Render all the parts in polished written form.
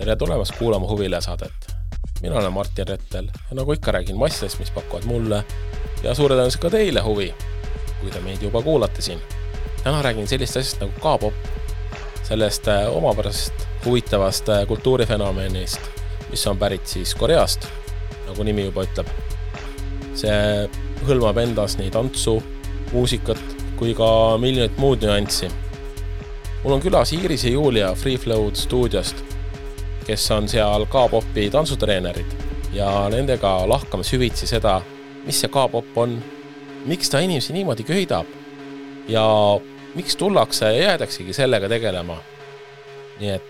Tere tulemast kuulama Huvile saadet. Mina olen Martin Rettel ja nagu ikka räägin massidest, mis pakuvad mulle ja suure tõenäoliselt ka teile huvi, kui te meid juba kuulate siin. Täna räägin sellist asjast nagu K-pop, sellest omapärasest huvitavast kultuurifenomenist, mis on pärit siis Koreast, nagu nimi juba ütleb. See hõlmab endas nii tantsu, muusikat kui ka miljonit muud nüanssi. Mul on külas Iiris ja Julia Free Flow'd stuudiost, kes on seal K-popi tantsutreenerid ja nendega lahkame süvitsi seda, mis see K-pop on, miks ta inimesi niimoodi köidab ja miks tullakse ja jäädaksegi sellega tegelema. Nii et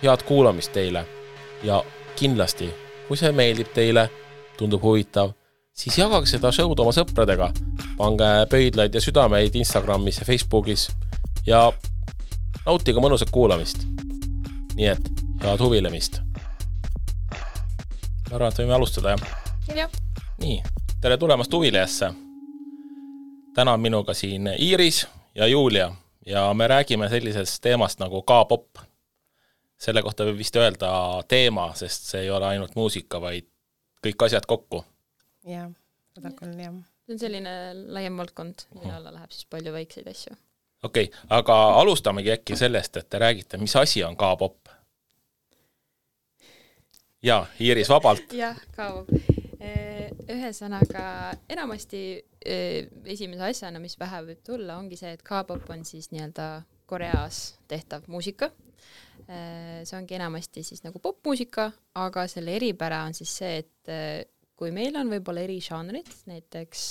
head kuulamist teile ja kindlasti, kui see meeldib teile, tundub huvitav, siis jagage seda show'd oma sõpradega, pange pöidlaid ja südameid Instagramis ja Facebookis ja nautige mõnusat kuulamist. Nii et head huvilemist. Ma arvan, et võime alustada, jah? Jah. Nii, tere tulemast Huvilejasse. Täna on minuga siin Iiris ja Julia ja me räägime sellisest teemast nagu K-pop. Selle kohta võib vist öelda teema, sest see ei ole ainult muusika, vaid kõik asjad kokku. Jah, seda küll, jah. See on selline laiem valdkond, mille alla läheb siis palju väikseid asju. Okei, aga alustamegi äkki sellest, et te räägite, mis asi on K-pop? Jaa, Iiris vabalt. Jah, K-pop. Ühesõnaga, enamasti esimese asjana, mis vähe võib tulla, ongi see, et K-pop on siis nii-öelda Koreas tehtav muusika. See ongi enamasti siis nagu popmuusika, aga selle eripära on siis see, et kui meil on võib-olla eri žanrid, näiteks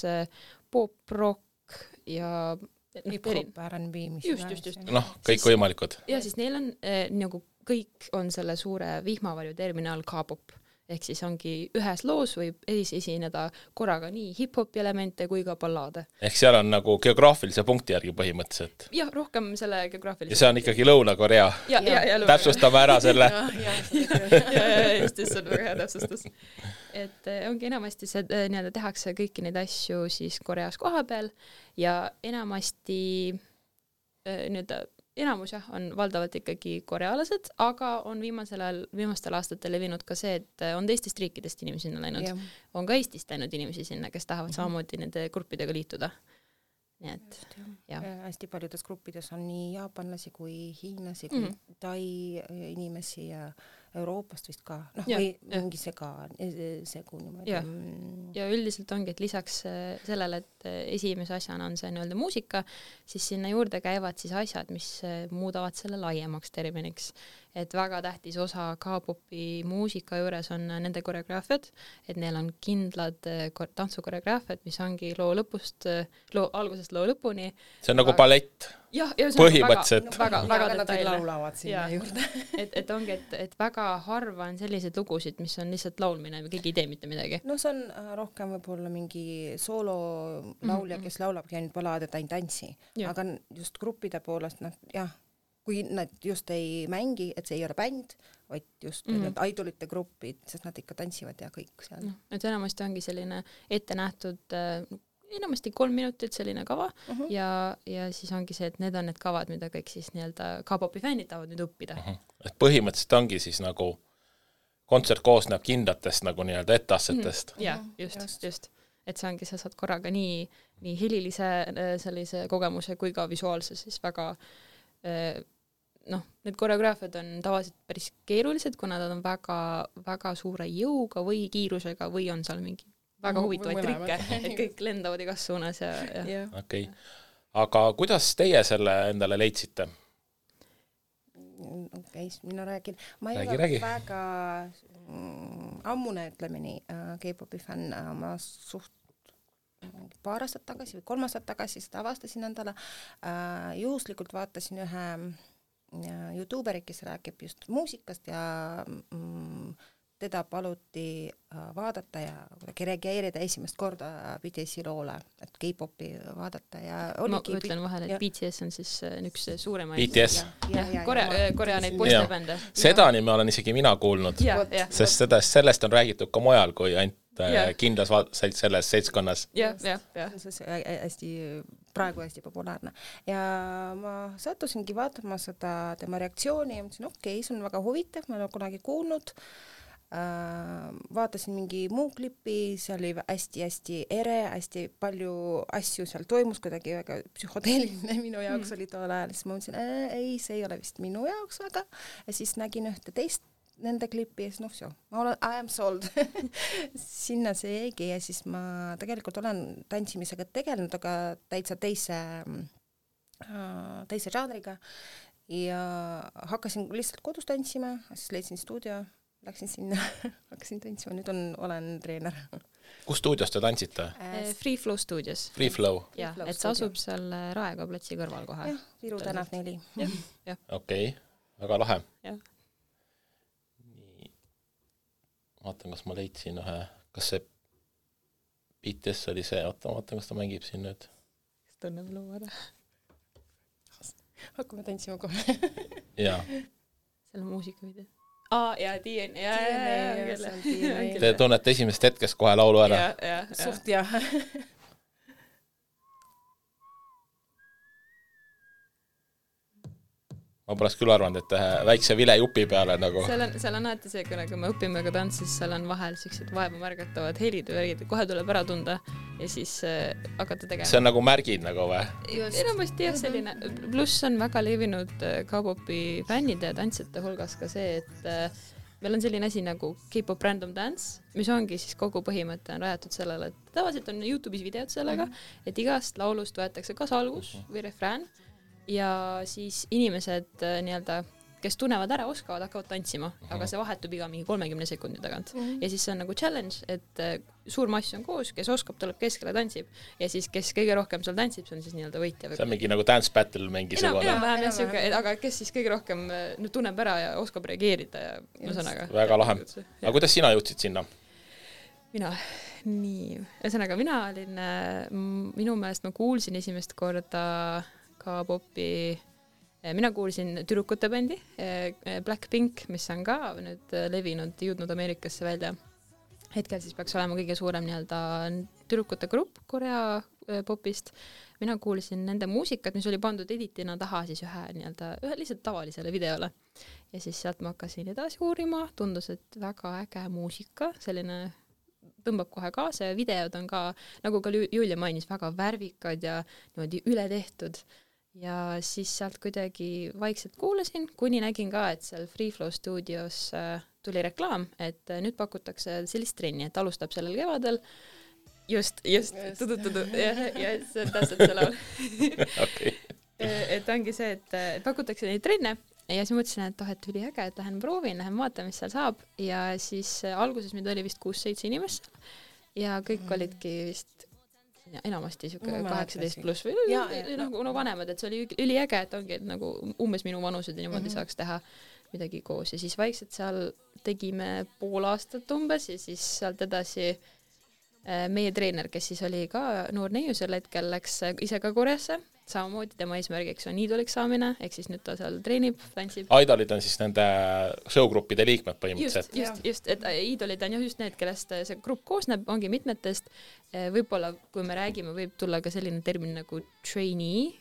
pop, rock ja hip-hop, R&B, mis just. Kõik võimalikud. Ja siis neil on nagu kõik on selle suure vihmavarju terminal K-pop. Ehk siis ongi ühes loos võib esineda korraga nii hip-hopi elemente kui ka ballaade. Ehk seal on nagu geograafilise punkti järgi põhimõtteliselt. Jah, rohkem selle geograafilise. Ja see on ikkagi Lõuna-Korea. Ja, täpsustame ära selle. Just see on väga hea täpsustus. Et ongi enamasti see nii-öelda tehakse kõiki neid asju siis Koreas koha peal ja enamasti nii-öelda enamus on valdavalt ikkagi korealased, aga on viimastel aastatel levinud ka see, et on teistest riikidest inimesi sinna läinud. Yeah. On ka Eestist läinud inimesi sinna, kes tahavad samamoodi nende gruppidega liituda. Nii et, ja. Hästi paljudes gruppides on nii jaapanlasi kui hiinlasi, kui tai inimesi ja Euroopast vist ka. Või mingi segu niimoodi. Ja üldiselt ongi, et lisaks sellele, et esimese asjana on see nii-öelda muusika, siis sinna juurde käivad siis asjad, mis muudavad selle laiemaks terminiks. Et väga tähtis osa K-popi muusika juures on nende koreograafiad, et neil on kindlad tantsukoreograafiad, mis ongi loo algusest loo lõpuni. See on nagu ballett. Ja põhimõtteliselt. Väga detailne. Laulavad sinna juurde. Et ongi, et väga harva on sellised lugusid, mis on lihtsalt laulmine või keegi ei tee mitte midagi. No see on rohkem võib-olla mingi soolo laulja, kes laulabki ainult ballaade, ta ei tantsi. Aga just gruppide poolest, kui nad just ei mängi, et see ei ole bänd, vaid just need idolite grupid, sest nad ikka tantsivad ja kõik seal. Et enamasti ongi selline ette nähtud enamasti 3 minutit selline kava ja siis ongi see, et need on need kavad, mida kõik siis nii-öelda K-popi fännid tahavad nüüd õppida. Et põhimõtteliselt ongi siis nagu kontsert koosneb kindlatest nagu nii-öelda ettassetest. Ja, just. Et see ongi, sa saad korraga nii helilise sellise kogemuse kui ka visuaalse siis väga need koreograafiad on tavaliselt päris keerulised, kuna nad on väga, väga suure jõuga või kiirusega või on seal mingi väga huvitavaid trikke, et kõik lendavad igas suunas ja. Okei. Aga kuidas teie selle endale leidsite? Mina räägin. Ma ei ole väga ammune ütlemini K-popi fänn, ma paar aastat tagasi või 3 aastat tagasi seda avastasin endale. Juhuslikult vaatasin ühe YouTuberi, kes räägib just muusikast ja teda paluti vaadata ja reageerida esimest korda BTS-i loole, et K-popi vaadata ja ma ütlen vahele, et BTS on siis üks suuremaid BTS? Korea neid poistebände. Seda nime olen isegi mina kuulnud, sest sellest on räägitud ka mujal kui ainult kindlas selles seltskonnas. jah. hästi, praegu hästi populaarne. Ja ma sattusingi vaatama seda tema reaktsiooni ja mõtlesin, okei, see on väga huvitav, ma olen kunagi kuulnud. Vaatasin mingi muu klipi, see oli hästi-hästi ere, hästi palju asju seal toimus, kuidagi väga psühhodeeliline minu jaoks oli tool ajal, siis ma mõtlesin, ei, see ei ole vist minu jaoks väga, ja siis nägin ühte teist nende klipi ja siis I am sold. Sinna see jäigi ja siis ma tegelikult olen tantsimisega tegelenud, aga täitsa teise žanriga ja hakkasin lihtsalt kodus tantsima, siis leidsin stuudio, läksin sinna, hakkasin tantsima, nüüd olen treener. Kus stuudios te tantsite? Free Flow stuudios. Free Flow? Jah, et see asub seal Raekoja platsi kõrval kohe. Jah, Viru tänav 4. Okei, väga lahe. Jah. Vaatan, kas ma leidsin ühe, kas see BTS oli see, vaatan, kas ta mängib siin nüüd. Kas tunneb loo ära? Hakkame tantsima kohe. Jaa. Seal on muusikavideo. Ja DNA. Te tunnete esimest hetkest kohe laulu ära? Suht jah. Ma poleks küll arvanud, et väikse vilejupi peale nagu. Seal on alati see, kui me õpime ka tantsis, seal on vahel sellised vaeva märgatavad helid või värgid, kohe tuleb ära tunda ja siis hakata tegema. See on nagu märgid nagu või? Enamasti jah, selline. Pluss on väga levinud K-popi fännide ja tantsijate hulgas ka see, et meil on selline asi nagu K-pop random dance, mis ongi siis kogu põhimõte on rajatud sellele, et tavaliselt on YouTube'is videod sellega, et igast laulust võetakse kas algus või refrään ja siis inimesed nii-öelda, kes tunnevad ära, oskavad, hakkavad tantsima, aga see vahetub iga mingi 30 sekundi tagant. Ja siis see on nagu challenge, et suur mass on koos, kes oskab, tuleb keskele tantsib ja siis kes kõige rohkem seal tantsib, see on siis nii-öelda võitja. See on mingi nagu dance battle mingisugune. Enam-vähem jah, siuke, aga kes siis kõige rohkem tunneb ära ja oskab reageerida ja mõsõnaga. Väga lahe. Aga kuidas sina jõudsid sinna? Ühesõnaga, mina olin, minu meelest ma kuulsin esimest korda K-popi, mina kuulsin tüdrukute bändi Blackpink, mis on ka nüüd levinud, jõudnud Ameerikasse välja. Hetkel siis peaks olema kõige suurem nii-öelda tüdrukute grupp Korea popist. Mina kuulsin nende muusikat, mis oli pandud editina taha siis ühe lihtsalt tavalisele videole. Ja siis sealt ma hakkasin edasi uurima, tundus, et väga äge muusika, selline tõmbab kohe kaasa ja videod on ka, nagu ka Julia mainis, väga värvikad ja niimoodi üle tehtud. Ja siis sealt kuidagi vaikselt kuulasin, kuni nägin ka, et seal Free Flow stuudios tuli reklaam, et nüüd pakutakse sellist trenni, et alustab sellel kevadel. Just, tudu, ja see on täpselt see laul. Okay. Et ongi see, et pakutakse neid trenne ja siis mõtlesin, et üli äge, et lähen proovin, lähen vaatan, mis seal saab ja siis alguses meid oli vist 6-7 inimest ja kõik olidki vist enamasti siuke 18 pluss või nagu vanemad, et see oli üliäge, et ongi et nagu umbes minu vanused ja niimoodi saaks teha midagi koos ja siis vaikselt seal tegime pool aastat umbes ja siis sealt edasi meie treener, kes siis oli ka noor neiu sel hetkel, läks ise ka Koreasse, samamoodi tema eesmärgiks on iidoliks saamine, ehk siis nüüd ta seal treenib, tantsib. Idolid on siis nende showgruppide liikmed põhimõtteliselt. Just, et iidolid on just need, kellest see grupp koosneb, ongi mitmetest. Võib-olla, kui me räägime, võib tulla ka selline termin nagu trainee.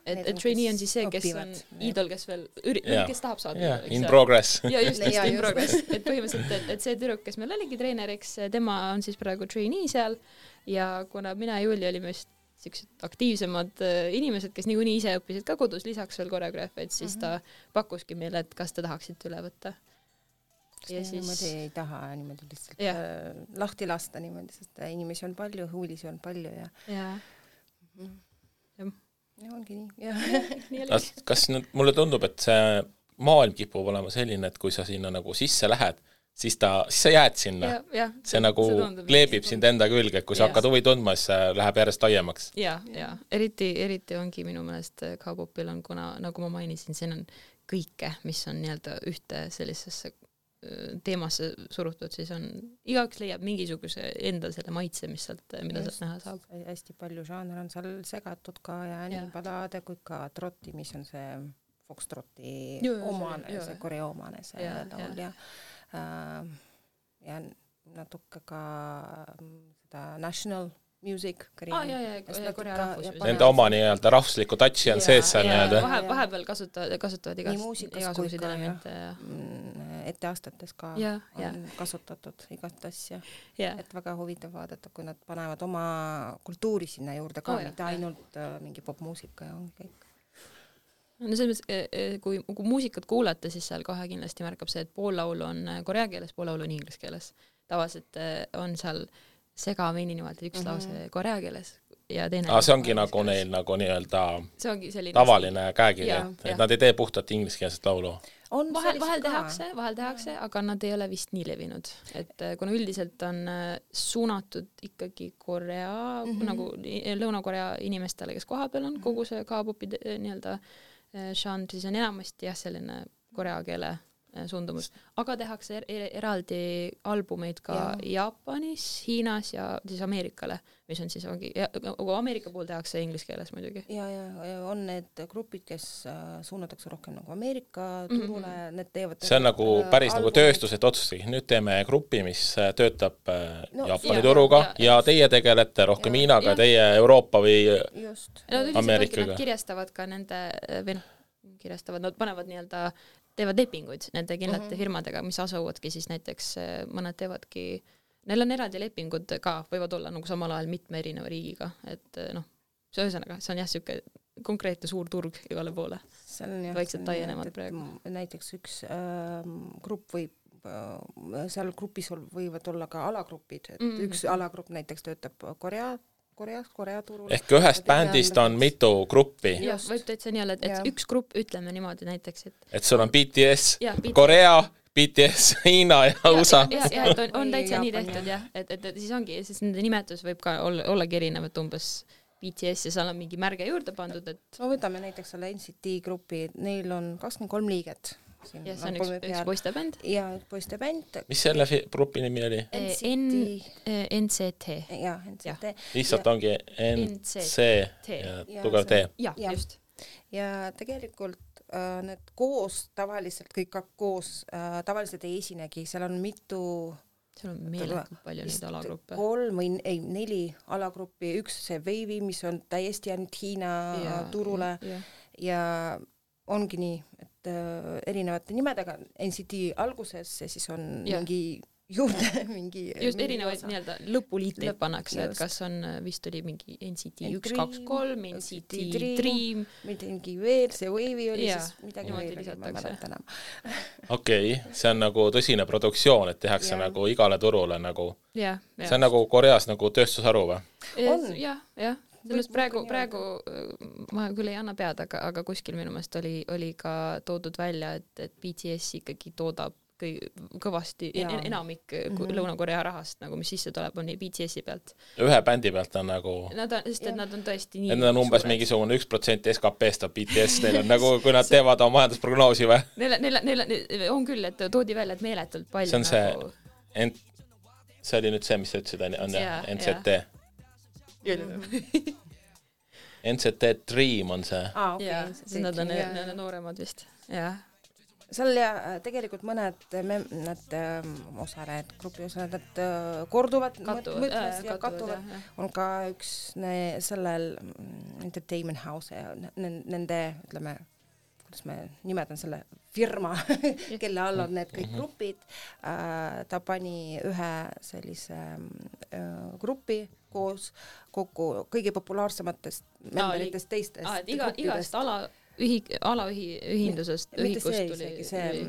Et trainee on siis see, kes on iidol, kes veel kes tahab saada. In progress. Ja just in progress. Et põhimõtteliselt, et see tüdruk, kes meil oligi treeneriks, tema on siis praegu trainee seal ja kuna mina ja Julia olime just siuksed aktiivsemad inimesed, kes niikuinii ise õppisid ka kodus, lisaks veel koreograafiaid, siis ta pakkuski meile, et kas te tahaksite üle võtta. Ja siis niimoodi ei taha niimoodi lihtsalt lahti lasta niimoodi, sest inimesi on palju, huvilisi on palju ja ongi nii. Kas mulle tundub, et see maailm kipub olema selline, et kui sa sinna nagu sisse lähed, siis sa jääd sinna. See nagu kleebib sind enda külge, et kui sa hakkad huvi tundma, siis see läheb järjest laiemaks. Ja. Eriti ongi minu meelest K-popil on, kuna nagu ma mainisin, siin on kõike, mis on nii-öelda ühte sellisesse teemasse surutud, siis on igaks leiab mingisuguse enda selle maitse, mida sealt näha saab. Hästi palju žaaner on seal segatud ka ja nii ballade kui ka trotti, mis on see foxtrotti omane, see Korea omane see laul ja natuke ka seda national music, Korea rahvus. Nende oma nii-öelda rahvusliku touchi on sees seal nii-öelda. Vahepeal kasutavad igasuguseid elemente. Etteastetes ka on kasutatud igast asja. Et väga huvitav vaadata, kui nad panevad oma kultuuri sinna juurde ka, mitte ainult mingi popmuusika ja ongi kõik. No selles mõttes, kui muusikat kuulata, siis seal kohe kindlasti märkab see, et pool laulu on korea keeles, pool laulu on inglise keeles. Tavaliselt on seal segamini niimoodi üks lause korea keeles ja teine... see ongi nagu neil nagu nii-öelda selline tavaline käekiri, et nad ei tee puhtalt ingliskeelset laulu. Vahel tehakse, aga nad ei ole vist nii levinud. Et kuna üldiselt on suunatud ikkagi Korea, nagu Lõuna-Korea inimestele, kes kohapeal on, kogu see K-popi nii-öelda žanr, siis on enamasti selline korea keele suundumus. Aga tehakse eraldi albumeid ka Jaapanis, Hiinas ja siis Ameerikale, mis on siis Ameerika puhul tehakse inglise keeles muidugi. Ja on need grupid, kes suunatakse rohkem nagu Ameerika turule, need teevad... See on nagu päris nagu tööstus, et otsustagi, nüüd teeme grupi, mis töötab Jaapani turuga ja teie tegelete rohkem Hiinaga, teie Euroopa või Ameerikaga. Nad kirjastavad ka nende, nad panevad nii-öelda teevad lepinguid nende kindlate firmadega, mis asuvadki siis näiteks, mõned teevadki, neil on eraldi lepingud ka, võivad olla nagu samal ajal mitme erineva riigiga, et see ühesõnaga, see on siuke konkreetne suur turg igale poole. Vaikselt taienemad praegu. Näiteks üks grupp võib, seal grupis võivad olla ka alagrupid, et üks alagrupp näiteks töötab Korea turul. Ehk ühest bändist on mitu gruppi. Jah, võib täitsa nii olla, et üks grupp, ütleme niimoodi näiteks, et sul on BTS, Korea, BTS, Hiina ja USA. Ja, on täitsa nii tehtud, jah. Et siis ongi, siis nende nimetus võib ka ollagi erinevat umbes BTS ja seal on mingi märge juurde pandud, et... Võtame näiteks selle NCT grupi, neil on 23 liiget. Ja see on üks poistebänd. Ja poistebänd. Mis selle grupi nimi oli? NCT. Ja, NCT. Lihtsalt ongi NC ja tugev T. Ja, just. Ja tegelikult need koos, tavaliselt kõik koos, tavaliselt ei esinegi, seal on mitu... Seal on meeletult palju neid alagruppe. 3 või 4 alagruppi, üks see Wavy, mis on täiesti ainult Hiina turule ja ongi nii, et erinevate nimedega NCT alguses ja siis on mingi juurde mingi... Just erinevaid nii-öelda lõpuliiteid pannakse, et kas on, vist oli mingi NCT 1, 2, 3, NCT Dream. Mingi veel, see Wavy oli siis midagi veel, ma mäletan enam. Okei, see on nagu tõsine produktsioon, et tehakse nagu igale turule nagu... See on nagu Koreas nagu tööstusharu või? Jah. Praegu ma küll ei anna pead, aga kuskil minu meelest oli ka toodud välja, et BTS ikkagi toodab kõvasti enamik Lõuna-Korea rahast, nagu mis sisse tuleb, on BTS-i pealt. Ühe bändi pealt on nagu... Sest et nad on tõesti nii... Need on umbes mingisugune 1% SKP-st on BTS, neil on nagu, kui nad teevad oma majandusprognoosi või? Neil on küll, et toodi välja, et meeletult palju see on nagu... See oli nüüd see, mis sa ütlesid, on NCT. NCT Dream on see. Okay. Nad on nooremad vist. Seal tegelikult mõned osalejad, grupi osalejad korduvad, kattuvad. On ka üks sellel Entertainment House ja nende, ütleme, kuidas me nimetan selle firma, kelle all on need kõik grupid. Ta pani ühe sellise grupi koos kokku kõige populaarsematest memberitest teistest. Igast alaühindusest ühikust tuli. See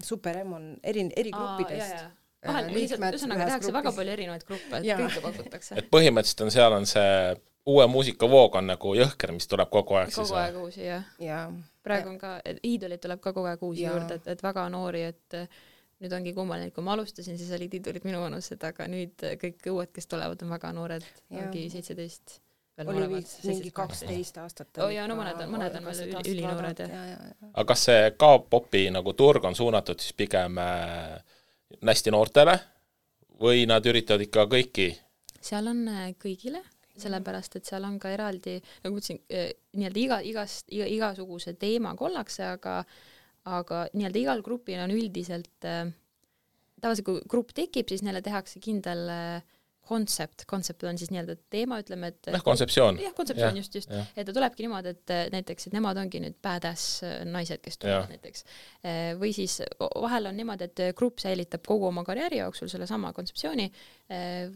Super M on eri gruppidest. Ühesõnaga tehakse väga palju erinevaid gruppe, et kõike pakutakse. Et põhimõtteliselt on seal on see uue muusikavoog on nagu jõhker, mis tuleb kogu aeg. Kogu aeg uusi, jah. Praegu on ka, iidolit tuleb ka kogu aeg uusi juurde, et väga noori, et nüüd ongi kummaline, kui ma alustasin, siis olid iidolid minu vanused, aga nüüd kõik uued, kes tulevad, on väga noored, ongi 17. Oli mingi 12 aastat. No mõned on veel ülinoored. Aga kas see K-popi nagu turg on suunatud siis pigem hästi noortele või nad üritavad ikka kõiki? Seal on kõigile, sellepärast, et seal on ka eraldi, nagu ütlesin, nii-öelda igasuguse teema kollakse, aga nii-öelda igal grupil on üldiselt tavaliselt kui grupp tekib, siis neile tehakse kindel kontsepт on siis nii-öelda teema, ütleme, et kontseptsioon. Jah, kontseptsioon just. Et ta tulebki niimoodi, et näiteks, et nemad ongi nüüd badass naised, kes tulevad näiteks. Või siis vahel on niimoodi, et grupp säilitab kogu oma karjääri jooksul selle sama kontseptsiooni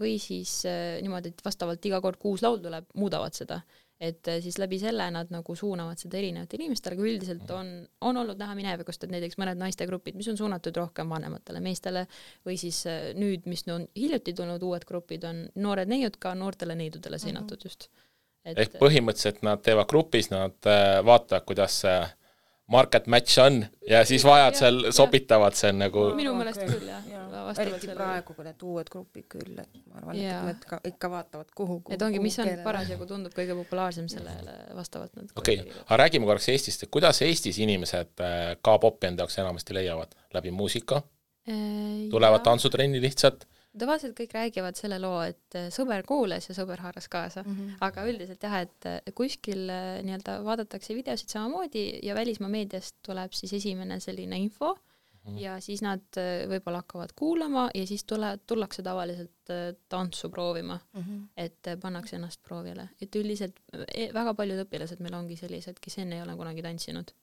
või siis niimoodi, et vastavalt iga kord 6 laul tuleb, muudavad seda. Et siis läbi selle nad nagu suunavad seda erinevate inimestele, aga üldiselt on olnud näha minevikust, et näiteks mõned naistegrupid, mis on suunatud rohkem vanematele meestele või siis nüüd, mis on hiljuti tulnud uued grupid, on noored neiud ka noortele neidudele seinatud just. Ehk põhimõtteliselt nad teevad grupis, nad vaatavad, kuidas market match on ja siis vajadusel sobitavad see nagu... Minu mõelest küll, jah. Eriti praegu, kui need uued grupid küll, et ma arvan, et nad ikka vaatavad kuhu et ongi, mis on parasjagu tundub kõige populaarsem sellele vastavalt. Okei, aga räägime korraks Eestist, et kuidas Eestis inimesed K-popi enda jaoks enamasti leiavad? Läbi muusika? Tulevad tantsutrenni lihtsalt? Tavaliselt kõik räägivad selle loo, et sõber kuules ja sõber haaras kaasa, aga üldiselt jah, et kuskil nii-öelda vaadatakse videosid samamoodi ja välismaa meediast tuleb siis esimene selline info ja siis nad võib-olla hakkavad kuulama ja siis tullakse tavaliselt tantsu proovima, et pannakse ennast proovile. Et üldiselt väga paljud õpilased meil ongi sellised, kes enne ei ole kunagi tantsinud,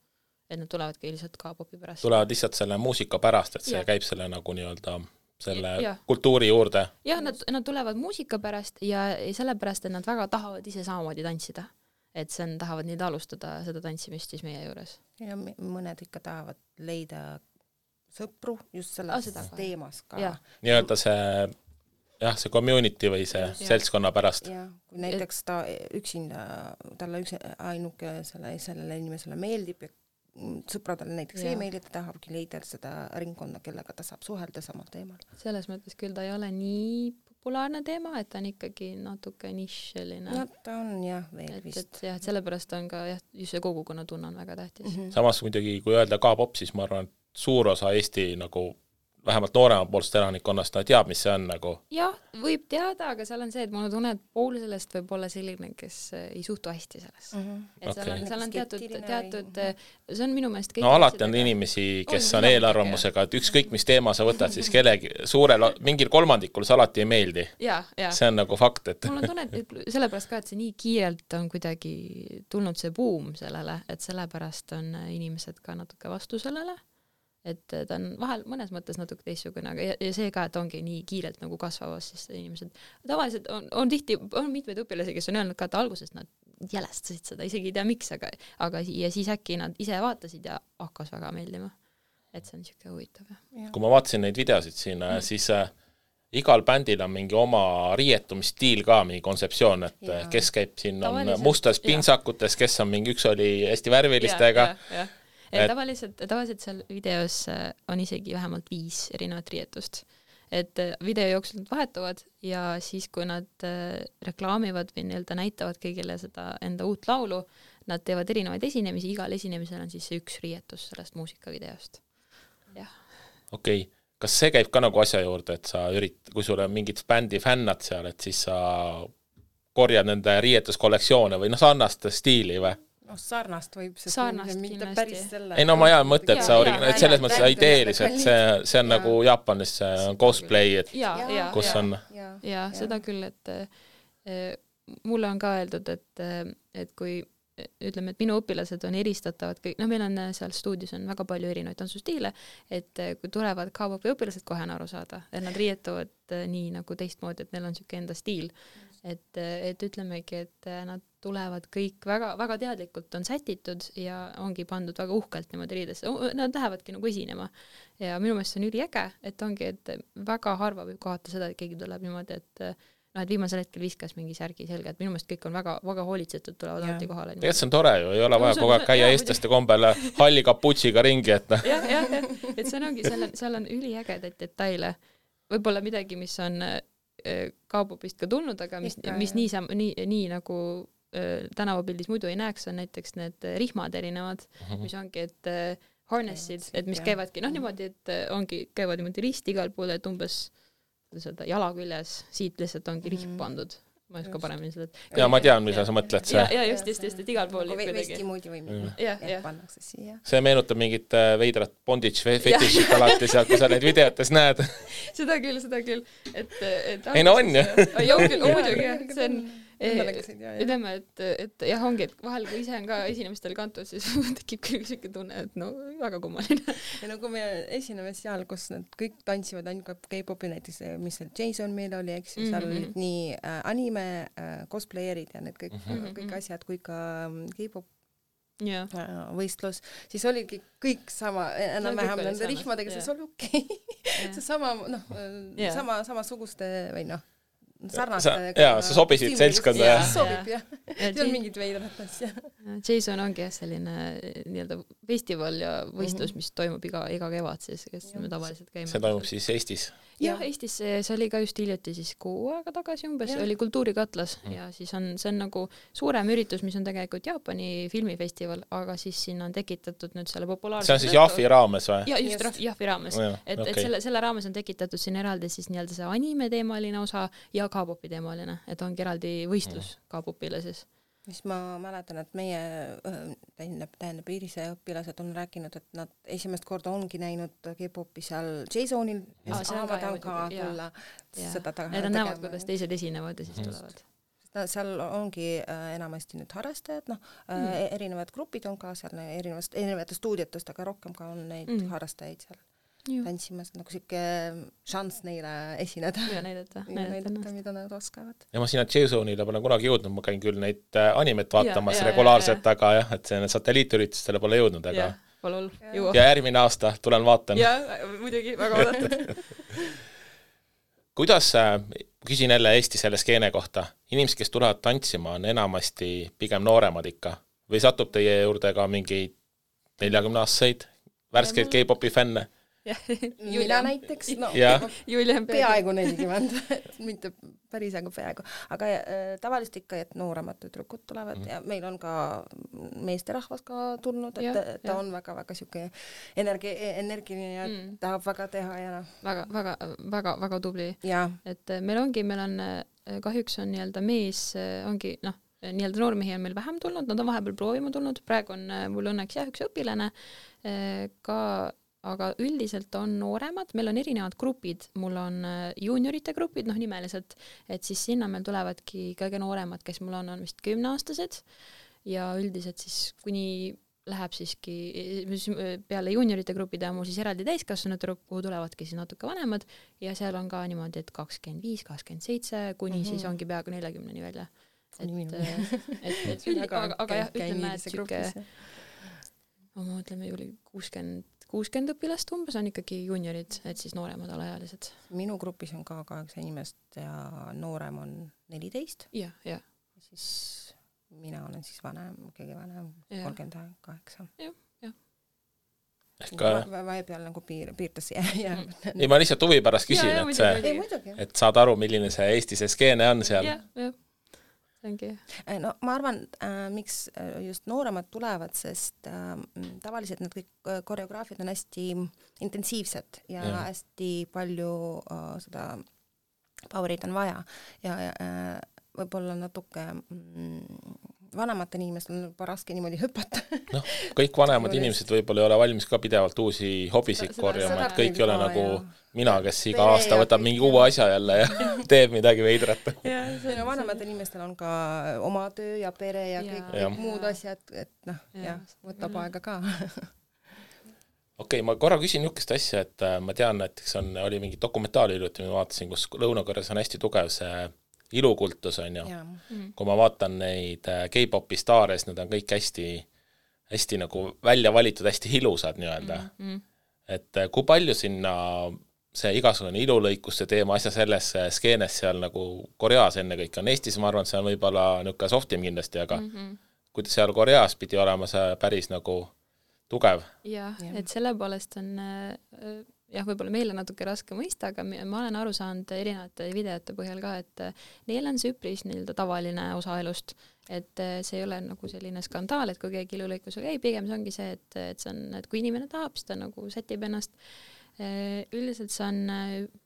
et nad tulevadki lihtsalt K-popi pärast. Tulevad lihtsalt selle muusika pärast, et see käib selle nagu nii-öelda selle kultuuri juurde. Jah, nad tulevad muusika pärast ja sellepärast, et nad väga tahavad ise samamoodi tantsida. Et see tahavad nii alustada seda tantsimist siis meie juures. Ja mõned ikka tahavad leida sõpru just selles teemas ka. Nii-öelda see community või see seltskonna pärast. Ja, kui näiteks ta üksinda, talle ainuke sellele inimesele meeldib ja sõpradele näiteks e-maili, ta tahabki leida seda ringkonna, kellega ta saab suhelda samal teemal. Selles mõttes küll ta ei ole nii populaarne teema, et ta on ikkagi natuke nišeline. No ta on veel vist. Et sellepärast on ka just see kogukonna tunne on väga tähtis. Samas muidugi, kui öelda K-pop, siis ma arvan, et suur osa Eesti nagu vähemalt nooremapoolsest elanikkonnast ta teab, mis see on nagu. Jah, võib teada, aga seal on see, et mulle tunne, et pool sellest võib olla selline, kes ei suhtu hästi selles. Et seal on teatud see on minu meelest no alati on inimesi, kes on eelarvamusega, et ükskõik mis teema sa võtad, siis kellegi mingil kolmandikul see alati ei meeldi. See on nagu fakt, et mul on tunne, et sellepärast ka, et see nii kiirelt on kuidagi tulnud see buum sellele, et sellepärast on inimesed ka natuke vastu sellele. Et ta on vahel mõnes mõttes natuke teistsugune, aga ja see ka, et ongi nii kiirelt nagu kasvavas, siis inimesed tavaliselt on tihti, on mitmeid õpilasi, kes on öelnud ka, et alguses nad jälestasid seda, isegi ei tea miks, aga ja siis äkki nad ise vaatasid ja hakkas väga meeldima. Et see on niisugune huvitav. Kui ma vaatasin neid videosid siin, siis igal bändil on mingi oma riietumisstiil ka, mingi kontseptsioon, et kes käib siin on mustas pinsakutes, kes on mingi üks oli hästi värvilistega. Tavaliselt seal videos on isegi vähemalt 5 erinevat riietust. Et video jooksul nad vahetuvad ja siis, kui nad reklaamivad või nii-öelda näitavad kõigile seda enda uut laulu, nad teevad erinevaid esinemisi, igal esinemisel on siis üks riietus sellest muusikavideost. Okei. Kas see käib ka nagu asja juurde, et sa kui sul on mingid bändi fännad seal, et siis sa korjad nende riietuskollektsioone või sarnast stiili või? Sarnast võib see mitte päris selle. Ei no ma jaa mõtte, et sa selles mõttes ideeliselt, see on nagu Jaapanis cosplay, et kus on. Ja seda küll, et mulle on ka öeldud, et kui ütleme, et minu õpilased on eristatavad kõik, meil on seal stuudios on väga palju erinevaid tantsustiile, et kui tulevad K-popi õpilased kohe on aru saada, et nad riietuvad nii nagu teistmoodi, et neil on siuke enda stiil. Et ütlemegi, et nad tulevad kõik väga teadlikult on sätitud ja ongi pandud väga uhkelt niimoodi riidesse. Nad lähevadki nagu esinema. Ja minu meelest see on üliäge, et ongi, et väga harva võib kohata seda, et keegi tuleb niimoodi, et viimasel hetkel viskas mingi särgi selga, et minu meelest kõik on väga hoolitsetud, tulevad alati kohale. Tegelikult see on tore ju, ei ole vaja kogu aeg käia eestlaste kombele halli kaputsiga ringi, et et see on ongi, seal on üliägedaid detaile. Võib-olla midagi, mis on K-popist ka tulnud, aga mis nii nagu tänavapildis muidu ei näeks, on näiteks need rihmad erinevad, mis ongi, et harnessid, et mis käivadki, niimoodi, et käivad niimoodi risti igal pool, et umbes jala küljes, siit lihtsalt ongi rihm pandud. ma ei oska paremini seda. Ja ma tean, mida sa mõtled. Ja just, et igal pool nagu vesti moodi või pannakse siia. See meenutab mingit veidrat bondage fetišit alati seal, kui sa neid videotes näed. Seda küll. Ei no on ju. Joo küll, muidugi, see on ütleme, et jah, ongi, et vahel kui ise on ka esinemistel kantud, siis tekib küll selline tunne, et no väga kummaline. Ja no kui me esineme seal, kus nad kõik tantsivad ainult K-popi, näiteks mis seal Jason meil oli, eks seal olid nii anime, cosplayerid ja need kõik asjad kui ka K-pop võistlus, siis oligi kõik sama, enam-vähem nende rihmadega, see oli okei. See sama, samasuguste või sarnaste. Jaa, sa sobisid seltskonda. Sobib, jah. See on mingid veidrat asja. Jason ongi selline nii-öelda festival ja võistlus, mis toimub iga kevad siis, kes me tavaliselt käime. See toimub siis Eestis? Jah, Eestis see oli ka just hiljuti siis 6 aega tagasi umbes, oli Kultuurikatlas ja siis see on nagu suurem üritus, mis on tegelikult Jaapani filmifestival, aga siis sinna on tekitatud nüüd selle populaarse... See on siis Jahvi raames või? Ja, just Jahvi raames. Et selle raames on tekitatud siin eraldi siis nii-öelda see anime teemaline osa ja K-popi teemaline, et ongi eraldi võistlus K-popile siis. Mis ma mäletan, et meie tähendab Iirise õpilased on rääkinud, et nad esimest korda ongi näinud K-popi seal Jasonil ja saavad ka tulla seda taga. Need on näevad, kuidas teised esinevad ja siis tulevad. Seal ongi enamasti nüüd harrastajad, erinevad grupid on ka seal erinevate stuudiotest, aga rohkem ka on neid harrastajaid seal tantsimas, nagu siuke šans neile esineda ja näidata, mida nad oskavad. Ja ma sinna Jasonile pole kunagi jõudnud, ma käin küll neid animet vaatamas regulaarselt, aga jah, et see satelliitüritustele pole jõudnud, aga ja järgmine aasta tulen vaatan. Ja, muidugi, väga oodatud. Kuidas, küsin jälle Eesti selle skeene kohta, inimesed, kes tulevad tantsima, on enamasti pigem nooremad ikka või satub teie juurde ka mingeid 40-aastaseid värskeid K-popi fänne? Mina näiteks, peaaegu 40, mitte päris peaaegu, aga tavaliselt ikka, et nooremad tüdrukud tulevad ja meil on ka meesterahvas ka tulnud, et ta on väga siuke energiline ja tahab väga teha ja väga tubli. Et meil on kahjuks on nii-öelda mees, ongi nii-öelda noormehi on meil vähem tulnud, nad on vahepeal proovima tulnud, praegu on mul õnneks üks õpilane ka, aga üldiselt on nooremad, meil on erinevad grupid, mul on juuniorite grupid, nimeliselt, et siis sinna meil tulevadki kõige nooremad, kes mul on vist 10-aastased ja üldiselt siis kuni läheb siiski peale juuniorite grupide on mul siis eraldi täiskasvanud, kuhu tulevadki siis natuke vanemad ja seal on ka niimoodi, et 25, 27, kuni siis ongi peaaegu 40-ni välja. Aga jah, ütleme, et siuke ma mõtleme ju 60 õpilast umbes on ikkagi juuniorid, et siis nooremad alaealised. Minu grupis on ka 8 inimest ja noorem on 14. Ja. Siis mina olen siis kõige vanem, 38. Jah. Vahepeal nagu piirtas jääb. Ei, ma lihtsalt huvi pärast küsin, et saad aru, milline see Eesti see skeene on seal. Jah. No ma arvan, miks just nooremad tulevad, sest tavaliselt need kõik koreograafid on hästi intensiivsed ja hästi palju seda powerit on vaja ja võib-olla natuke vanematel inimestel on juba raske niimoodi hüpata. Kõik vanemad inimesed võib-olla ei ole valmis ka pidevalt uusi hobisid korjama, et kõik ei ole nagu mina, kes iga aasta võtab mingi uue asja jälle ja teeb midagi veidrat. Vanematel inimestel on ka oma töö ja pere ja kõik muud asjad, et võtab aega ka. Okei, ma korra küsin niisugust asja, et ma tean, et oli mingi dokumentaali hiljuti, ma vaatasin, kus Lõuna-Koreas on hästi tugev see ilukultus on ju. Kui ma vaatan neid K-popi staare, siis nad on kõik hästi nagu välja valitud, hästi ilusad nii-öelda. Et kui palju sinna see igasugune ilulõikuste teema asja selles skeenes seal nagu Koreas enne kõik on. Eestis ma arvan, et see on võib-olla niisugune softim kindlasti, aga kui seal Koreas pidi olema see päris nagu tugev. Jah, et selle poolest on võib-olla meile natuke raske mõista, aga ma olen aru saanud erinevate videote põhjal ka, et neil on see üpris tavaline osa elust, et see ei ole nagu selline skandaal, et kui keegi ilulõikusega pigem see ongi see, et see on, et kui inimene tahab, siis ta nagu sätib ennast. Üldiselt see on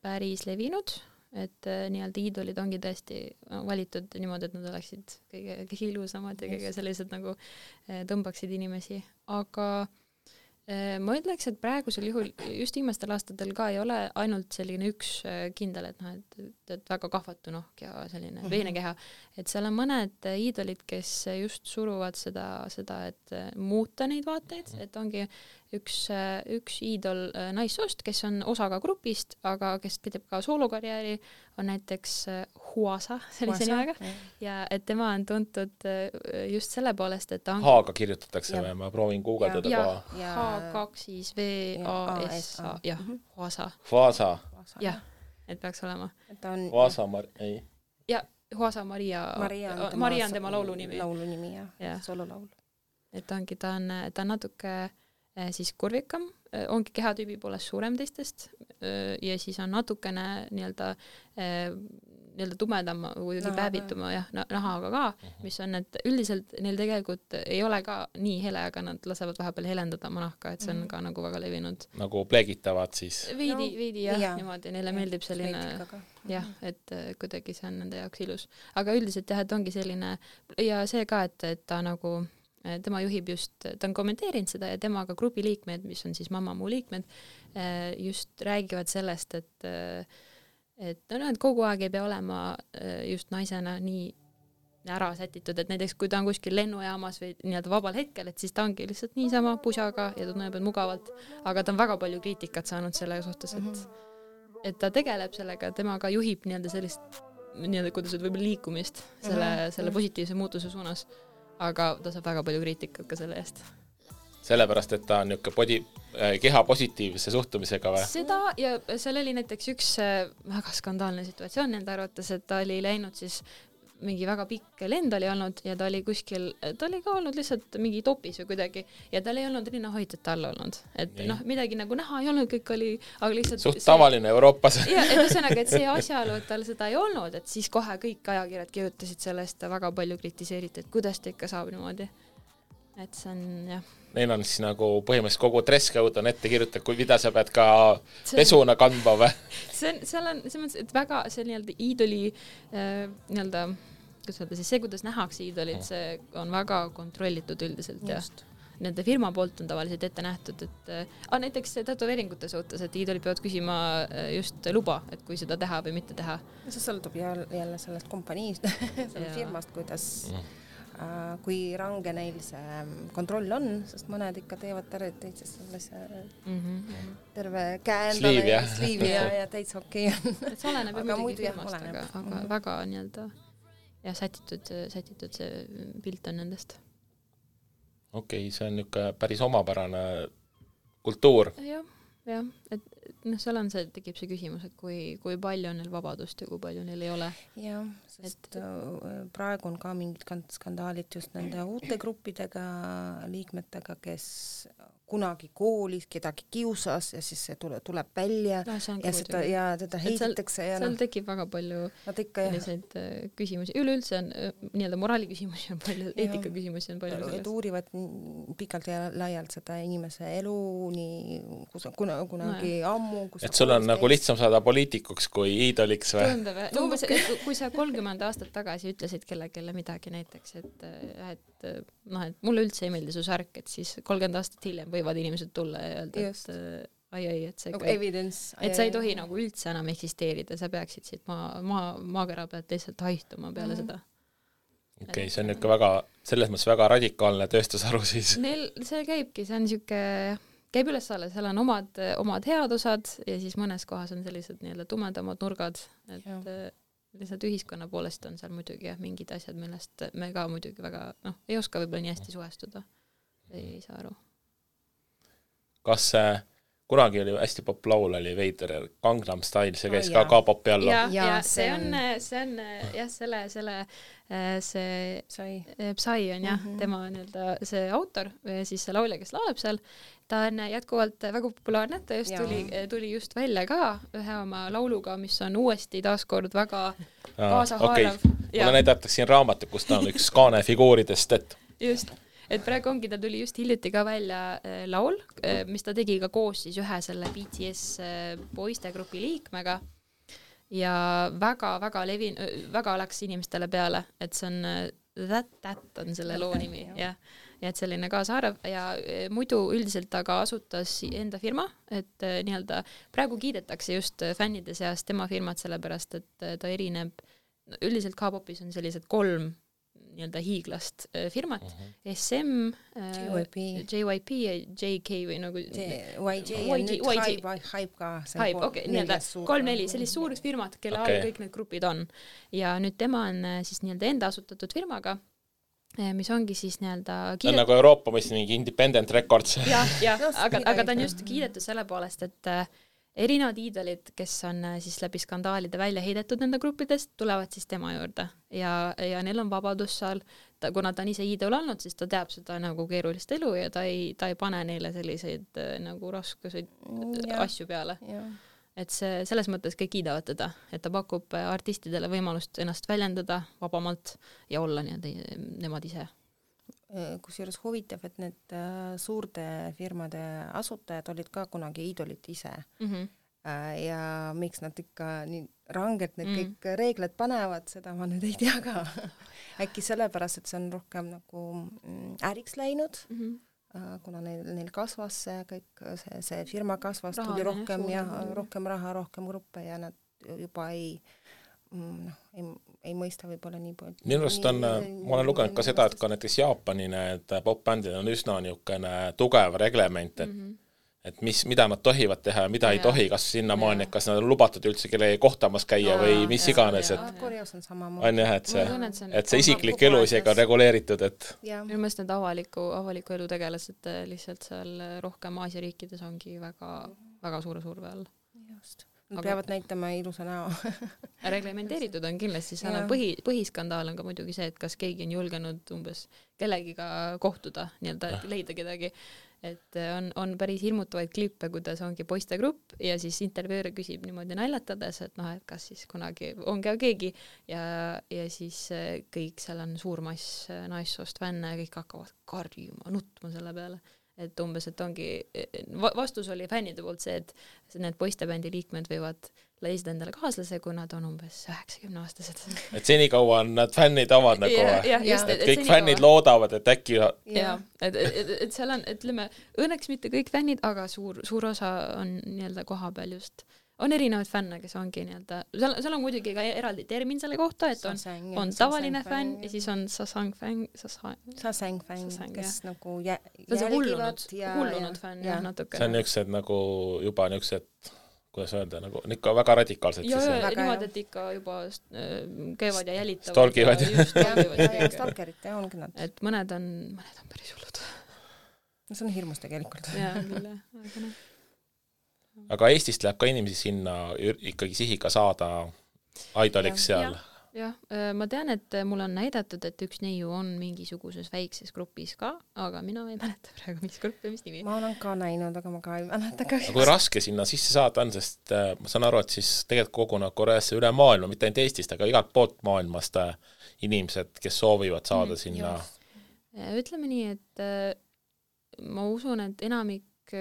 päris levinud et nii-öelda iidolid ongi tõesti valitud niimoodi, et nad oleksid kõige ilusamad ja kõige sellised nagu tõmbaksid inimesi, aga ma ütleks, et praegusel juhul just viimastel aastatel ka ei ole ainult selline üks kindel, et noh, et väga kahvatu nohk ja selline veenekeha, et seal on mõned iidolid, kes just suruvad seda, et muuta neid vaateid, et ongi üks iidol naissoost, kes on osa ka grupist, aga kes pideb ka soolokarjääri, on näiteks Huasa, sellise nimega, ja et tema on tuntud just selle poolest, et ta on... H-ga kirjutatakse või? Ma proovin guugeldada koha. H2VASA, jah, Huasa. Huasa. Jah, et peaks olema. Huasa, ei. Ja Huasa Maria on tema laulunimi. Laulunimi, jah, sololaul. Et ongi, ta on natuke siis kurvikam, ongi kehatüübi poolest suurem teistest ja siis on natukene nii-öelda tumedam või päevituma nahaga ka, mis on, et üldiselt neil tegelikult ei ole ka nii hele, aga nad lasevad vahepeal helendada oma nahka, et see on ka nagu väga levinud. Nagu pleegitavad siis? Veidi jah, niimoodi, neile meeldib selline jah, et kuidagi see on nende jaoks ilus. Aga üldiselt jah, et ongi selline ja see ka, et ta nagu tema juhib just, ta on kommenteerinud seda ja temaga grupi liikmed, mis on siis Mamamoo liikmed, just räägivad sellest, et kogu aeg ei pea olema just naisena nii ära sätitud, et näiteks kui ta on kuskil lennujaamas või nii-öelda vabal hetkel, et siis ta ongi lihtsalt niisama pusaga ja tunneb mugavalt, aga ta on väga palju kriitikat saanud selle suhtes, et ta tegeleb sellega, temaga juhib nii-öelda sellist, nii-öelda kuidas võib-olla liikumist selle positiivse muutuse suunas. Aga ta saab väga palju kriitikat ka selle eest. Sellepärast, et ta on keha positiivse suhtumisega või? Seda ja seal oli näiteks üks väga skandaalne situatsioon nende arvates, et ta oli läinud siis mingi väga pikk lend oli olnud ja ta oli kuskil, ta oli ka olnud lihtsalt mingi topis või kuidagi ja tal ei olnud rinnahoidjat all olnud. Et midagi nagu näha ei olnud, kõik oli, aga lihtsalt... Suht tavaline Euroopas. Ja, et ühesõnaga, et see asjaolu, et tal seda ei olnud, et siis kohe kõik ajakirjad kirjutasid sellest väga palju kritiseeriti, et kuidas ta ikka saab niimoodi. Et see on, jah. Neil on siis nagu põhimõtteliselt kogu dresscode on ette kirjutada, kui mida sa pead ka pesuna kandma või? Seal on see, et väga see nii-öelda iidoli nii-öelda see, kuidas nähakse iidolid, see on väga kontrollitud üldiselt ja nende firma poolt on tavaliselt ette nähtud, et näiteks tätoveeringute suhtes, et iidolid peavad küsima just luba, et kui seda teha või mitte teha. See sõltub jälle sellest kompaniist, sellest firmast, kuidas kui range neil see kontroll on, sest mõned ikka teevad täitsa sellise terve käendale sliivi ja täitsa okei on. Et see oleneb muidugi firmast, aga väga nii-öelda ja sätitud see pilt on nendest. Okei, see on niisugune päris omapärane kultuur. Jah, et seal on tekib see küsimus, et kui palju on neil vabadust ja kui palju neil ei ole. Jah, sest praegu on ka mingid skandaalid just nende uute gruppidega, liikmetega, kes kunagi koolis kedagi kiusas ja siis see tuleb välja ja teda heidetakse. Seal tekib väga palju selliseid küsimusi. Üleüldse on nii-öelda moraali küsimusi on palju, eetika küsimusi on palju sellest. Et uurivad pikalt ja laialt seda inimese elu nii kunagi ammu. Et sul on nagu lihtsam saada poliitikuks kui iidoliks või? Tundub, kui sa 30 aastat tagasi ütlesid kellelegi midagi näiteks, et mulle üldse ei meeldi su särk, et siis 30 aastat hiljem võivad inimesed tulla ja öelda, et see et sa ei tohi nagu üldse enam eksisteerida, sa peaksid siit maakera pealt lihtsalt haistuma peale seda. Okei, see on ikka väga, selles mõttes väga radikaalne tööstusharu siis. See käibki, see on niisugune, käib üles-alla, seal on omad head osad ja siis mõnes kohas on sellised nii-öelda tumedamad nurgad, et lihtsalt ühiskonna poolest on seal muidugi mingid asjad, millest me ka muidugi väga, ei oska võib-olla nii hästi suhestuda. Ei saa aru. Kas kunagi oli hästi popp laul, oli veider Gangnam Style, see käis ka K-popi alla? Ja see on Psy on tema nii-öelda see autor, siis see laulja, kes lauleb seal, ta on jätkuvalt väga populaarne, ta just tuli just välja ka ühe oma lauluga, mis on uuesti taaskord väga kaasahaarav. Mulle näidatakse siin raamatu, kus ta on üks kaane figuuridest, et praegu ongi, ta tuli just hiljuti ka välja laul, mis ta tegi ka koos siis ühe selle BTS poistegrupi liikmega ja väga läks inimestele peale, et see on That on selle loo nimi, jah. Ja et selline kaasaarv ja muidu üldiselt aga asutas enda firma, et nii-öelda praegu kiidetakse just fännide seas tema firmat sellepärast, et ta erineb, üldiselt K-popis on sellised 3 nii-öelda hiiglast firmat, SM, JYP ja JK või nagu YG ja nüüd Hype ka. Hype, okei, nii-öelda 3-4, sellist suured firmad, kelle all kõik need grupid on. Ja nüüd tema on siis nii-öelda enda asutatud firmaga, mis ongi siis nii-öelda ta on nagu Euroopa mõistes mingi independent records. aga ta on just kiidetud selle poolest, et erinevad iidolid, kes on siis läbi skandaalide välja heidetud nende gruppidest, tulevad siis tema juurde ja neil on vabadus seal, kuna ta on ise iidol olnud, siis ta teab seda nagu keerulist elu ja ta ei pane neile selliseid nagu raskuseid asju peale. Et see selles mõttes kõik kiidavad teda, et ta pakub artistidele võimalust ennast väljendada vabamalt ja olla nemad ise. Kusjuures huvitav, et need suurte firmade asutajad olid ka kunagi iidolid ise. Ja miks nad ikka nii rangelt need kõik reeglid panevad, seda ma nüüd ei tea ka. Äkki sellepärast, et see on rohkem nagu äriks läinud, kuna neil kasvas see firma kasvas, tuli rohkem ja rohkem raha, rohkem gruppe ja nad juba ei mõista võib-olla nii palju. Minu arust on, ma olen lugenud ka seda, et ka näiteks Jaapani need pop-bändid on üsna niisugune tugev reglement, et mida nad tohivad teha ja mida ei tohi, kas sinna maani, kas nad on lubatud üldse kelle kohtamas käia või mis iganes, et Koreas on sama on jah, et see isiklik elu isegi on reguleeritud, et minu meelest need avaliku elu tegelased lihtsalt seal rohkem Aasia riikides ongi väga suure surve all. Just. Nad peavad näitama ilusa näo. Reglementeeritud on kindlasti, seal on põhiskandaal on ka muidugi see, et kas keegi on julgenud umbes kellegiga kohtuda, nii-öelda leida kedagi, et on päris hirmutavaid klippe, kuidas ongi poistegrupp ja siis intervjueer küsib niimoodi naljatades, et et kas siis kunagi on ka keegi ja siis kõik seal on suur mass naissoost fänne ja kõik hakkavad karjuma, nutma selle peale. Et umbes, et ongi, vastus oli fännide poolt see, et need poistebändi liikmed võivad leisida endale kaaslase, kui nad on umbes 90-aastased. Et senikaua on nad fännid avad nagu, et kõik fännid loodavad, et äkki et seal on, ütleme, õnneks mitte kõik fännid, aga suur osa on nii-öelda koha peal just. On erinevaid fänne, kes ongi nii-öelda, seal on muidugi ka eraldi termin selle kohta, et on tavaline fänn ja siis on sasang-fänn, kes nagu hullunud fänn, jah, natuke. See on niisugused nagu juba niisugused, kuidas öelda, nagu ikka väga radikaalsed. Ja niimoodi, et ikka juba käivad ja jälitavad. Stalkivad. Ja stalkerid, ongi nad. Et mõned on päris hullud. See on hirmus tegelikult. Jaa, küll, aga noh. Aga Eestist läheb ka inimesi sinna ikkagi sihiga saada idoliks seal. Jah, ma tean, et mul on näidatud, et üks neiu on mingisuguses väikses grupis ka, aga mina ei mäleta praegu, mis grupp ja mis nimi. Ma olen ka näinud, aga ma ka ei mäleta ka. Aga kui raske sinna sisse saada on, sest ma saan aru, et siis tegelikult kogunevad Koreasse üle maailma, mitte ainult Eestist, aga igalt poolt maailmast inimesed, kes soovivad saada sinna. Ütleme nii, et ma usun, et enamik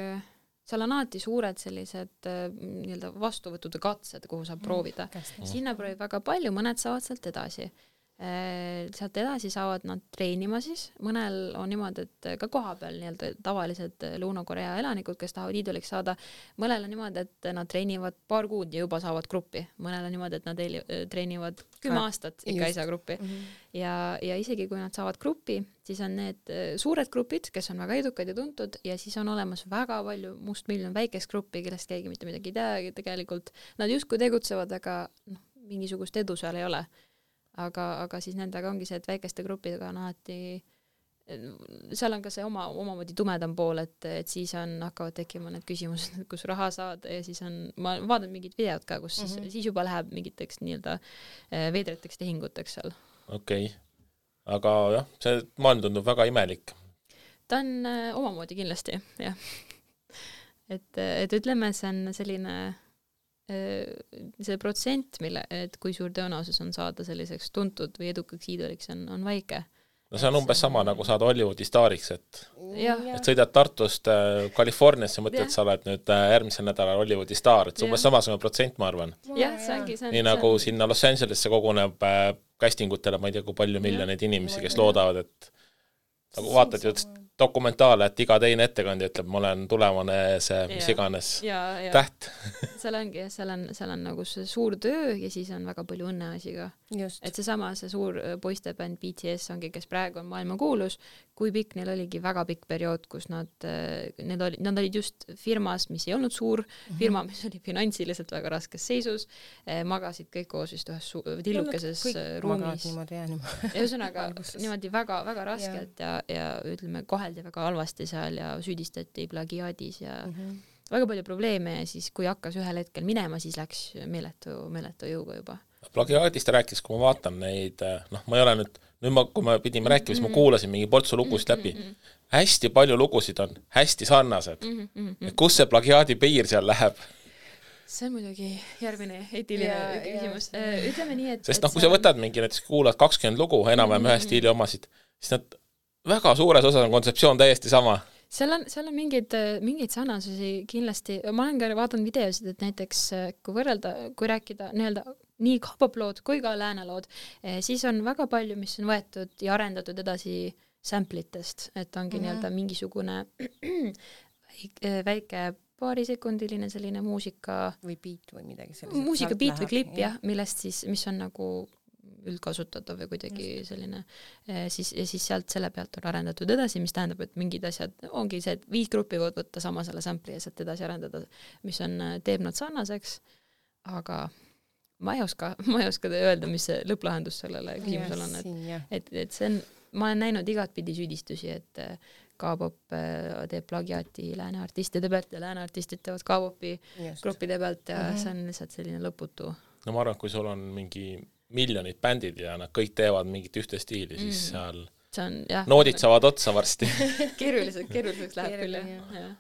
seal on alati suured sellised nii-öelda vastuvõtud ja katsed, kuhu saab proovida. Sinna proovib väga palju, mõned saavad sealt edasi. Sealt edasi saavad nad treenima siis. Mõnel on niimoodi, et ka koha peal nii-öelda tavalised Lõuna-Korea elanikud, kes tahavad iidoliks saada. Mõnel on niimoodi, et nad treenivad paar kuud ja juba saavad gruppi. Mõnel on niimoodi, et nad treenivad 10 aastat ikka ei saa gruppi. Ja isegi kui nad saavad gruppi, siis on need suured grupid, kes on väga edukad ja tuntud ja siis on olemas väga palju mustmiljon väikest gruppi, kellest keegi mitte midagi ei tea tegelikult. Nad justkui tegutsevad, aga mingisugust edu seal ei ole. Aga siis nendega ongi see, et väikeste gruppidega on alati, seal on ka see omamoodi tumedam pool, et siis hakkavad tekkima need küsimused, kus raha saad ja siis ma vaatan mingid videod ka, kus siis juba läheb mingiteks nii-öelda veedreteks tehinguteks seal. Okei. Aga jah, see maailm tundub väga imelik. Ta on omamoodi kindlasti, jah. Et ütleme, see on selline see protsent, et kui suur tõenäosus on saada selliseks tuntud või edukaks iidoliks on väike. no see on umbes sama, nagu saad Hollywoodi staariks, et sõidad Tartust Californiasse, mõtled, sa oled nüüd järgmisel nädalal Hollywoodi staar, et see umbes samasugune protsent, ma arvan. Jah, see ongi. Nii nagu sinna Los Angelesse koguneb castingutele, ma ei tea, kui palju miljoneid inimesi, kes loodavad, et nagu vaatad ju dokumentaale, et iga teine ettekandja ütleb, ma olen tulevane see, mis iganes täht. seal on nagu see suur töö ja siis on väga palju õnneasi ka. Et see suur poistebänd BTS ongi, kes praegu on maailma kuulus, kui pikk neil oligi väga pikk periood, kus nad olid just firmas, mis ei olnud suur, firma, mis oli finantsiliselt väga raskes seisus, magasid kõik koos vist ühes tillukeses ruumis. Ja ühesõnaga niimoodi väga, väga raskelt ja ütleme, koheldi väga halvasti seal ja süüdistati plagiaadis ja väga palju probleeme ja siis, kui hakkas ühel hetkel minema, siis läks meeletu jõuga juba. Plagiaadist rääkis, kui ma vaatan neid, ma ei ole nüüd kui me pidime rääkima, siis ma kuulasin mingi portsu lugusid läbi. Hästi palju lugusid on hästi sarnased. Kus see plagiaadi piir seal läheb? See on muidugi järgmine eetiline küsimus. Ütleme nii, et... Sest kui sa võtad mingi, näiteks kuulad 20 lugu, enam-vähem ühe stiili omasid, siis nad väga suures osas on kontseptsioon täiesti sama. Seal on mingeid sarnasusi kindlasti. Ma olen ka vaadanud videosid, et näiteks kui rääkida nii K-pop-lood kui ka läänalood, siis on väga palju, mis on võetud ja arendatud edasi samplitest, et ongi mingisugune väike paarisekundiline selline muusika või beat või midagi sellist. Muusika beat või klipp, millest siis, mis on nagu üldkasutatav või kuidagi selline, siis sealt selle pealt on arendatud edasi, mis tähendab, et mingid asjad ongi see, et 5 gruppi võid võtta sama selle sampli ja sealt edasi arendada, mis teeb nad sarnaseks, aga ma ei oska öelda, mis see lõpplahendus sellele küsimusele on, et see on, ma olen näinud igat pidi süüdistusi, et K-pop teeb plagiaati lääne artistide pealt ja lääne artistid teevad K-popi gruppide pealt ja see on lihtsalt selline lõputu. No ma arvan, kui sul on mingi miljonid bändid ja nad kõik teevad mingit ühte stiili, siis seal noodid saavad otsa varsti. Keeruliseks läheb küll, jah.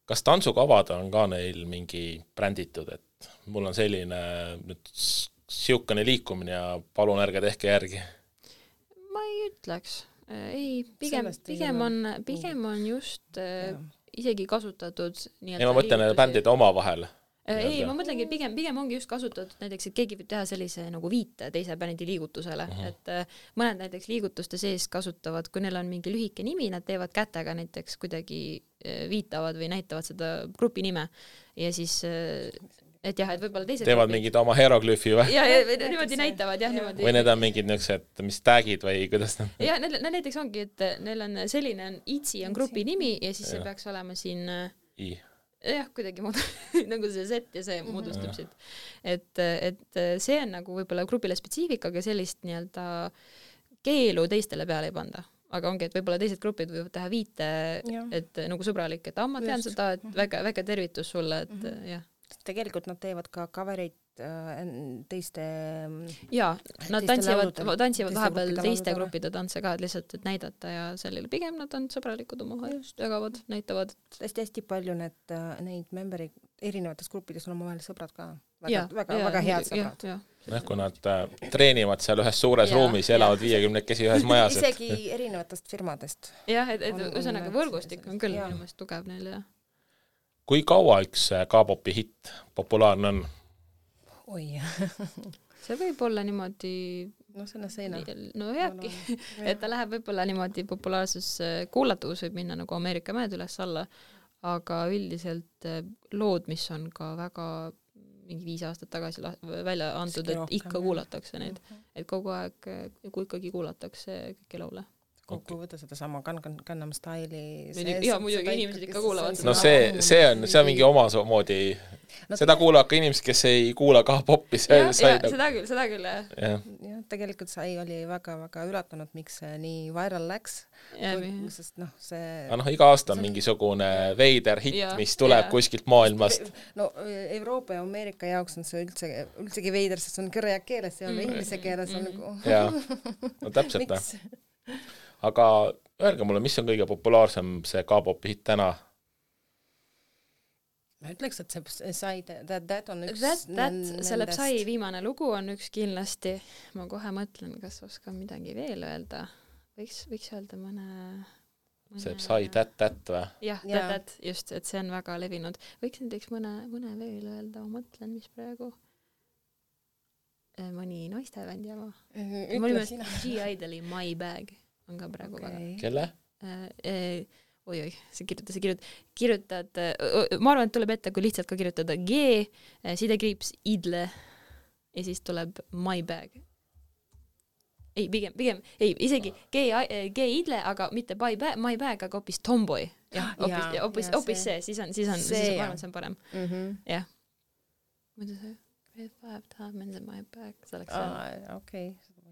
Kas tantsukavad on ka neil mingi bränditud, et mul on selline nüüd siukene liikumine ja palun ärge tehke järgi? Ma ei ütleks. Ei, pigem on just isegi kasutatud ei, ma mõtlen bändide oma vahel. Ei, ma mõtlengi, pigem ongi just kasutatud näiteks, et keegi võib teha sellise nagu viite teise bändi liigutusele, et mõned näiteks liigutuste sees kasutavad, kui neil on mingi lühike nimi, nad teevad kätega näiteks kuidagi viitavad või näitavad seda grupi nime ja siis et jah, et võib-olla teised teevad mingid oma hieroglüüfi või? Ja niimoodi näitavad, jah, niimoodi. Või need on mingid niisugused, mis tagid või kuidas nad? Ja näiteks ongi, et neil on selline, Itsi on grupi nimi ja siis see peaks olema siin jah, kuidagi nagu see set ja see moodustab siit. Et see on nagu võib-olla grupile spetsiifika, aga sellist nii-öelda keelu teistele peale ei panda. Aga ongi, et võib-olla teised grupid võivad teha viite, et nagu sõbralik, et ma tean seda, et väga tervitus sulle, et jah. Tegelikult nad teevad ka coverid teiste ja, nad tantsivad vahepeal teiste gruppide tantse ka, lihtsalt et näidata ja sellele pigem nad on sõbralikud omavahel, jagavad, näitavad. Hästi palju neid memberi erinevates gruppides on omavahel sõbrad ka. Väga head sõbrad. Kui nad treenivad seal ühes suures ruumis ja elavad 50 ühes majas. Isegi erinevatest firmadest. Jah, et ühesõnaga võrgustik on küll inimest tugev neil, jah. Kui kaua üks K-popi hitt populaarne on? Oi, see võib olla niimoodi selle seina. No jääbki, et ta läheb võib-olla niimoodi populaarsus kuulatavus võib minna nagu Ameerika mäed üles alla, aga üldiselt lood, mis on ka väga mingi 5 aastat tagasi välja antud, et ikka kuulatakse neid, et kogu aeg, kui ikkagi kuulatakse kõiki laule. Kokku võtta seda sama Gangnam Style'i ja muidugi inimesed ikka kuulavad no see on mingi omamoodi seda kuulavad ka inimesed, kes ei kuula K-popi seda küll jah, tegelikult sai oli väga üllatunud, miks see nii viral läks sest see iga aasta on mingisugune veider hitt, mis tuleb kuskilt maailmast no Euroopa ja Ameerika jaoks on see üldsegi veider, sest see on kõrja keeles ja inglise keeles on no täpselt aga öelge mulle, mis on kõige populaarsem see K-popi hitt täna? ma ütleks, et see Psy That on üks selle Psy viimane lugu on üks kindlasti. Ma kohe mõtlen, kas oskan midagi veel öelda. Võiks öelda mõne see Psy That või? Jah, That, just, et see on väga levinud. Võiks näiteks mõne veel öelda, ma mõtlen, mis praegu mõni naistebändi oma. Ütle sina. G-Idoli My Bag on ka praegu väga. Kelle? Oi, see kirjutad, ma arvan, et tuleb ette, kui lihtsalt ka kirjutada G, sidekriips idle ja siis tuleb My Bag. Ei, pigem, isegi G idle, aga mitte My Bag, aga hoopis Tomboy. Jah, hoopis see, siis on ma arvan, see on parem. Jah. Muidu see Red 5 Diamonds in My Bag, see oleks see. Okei.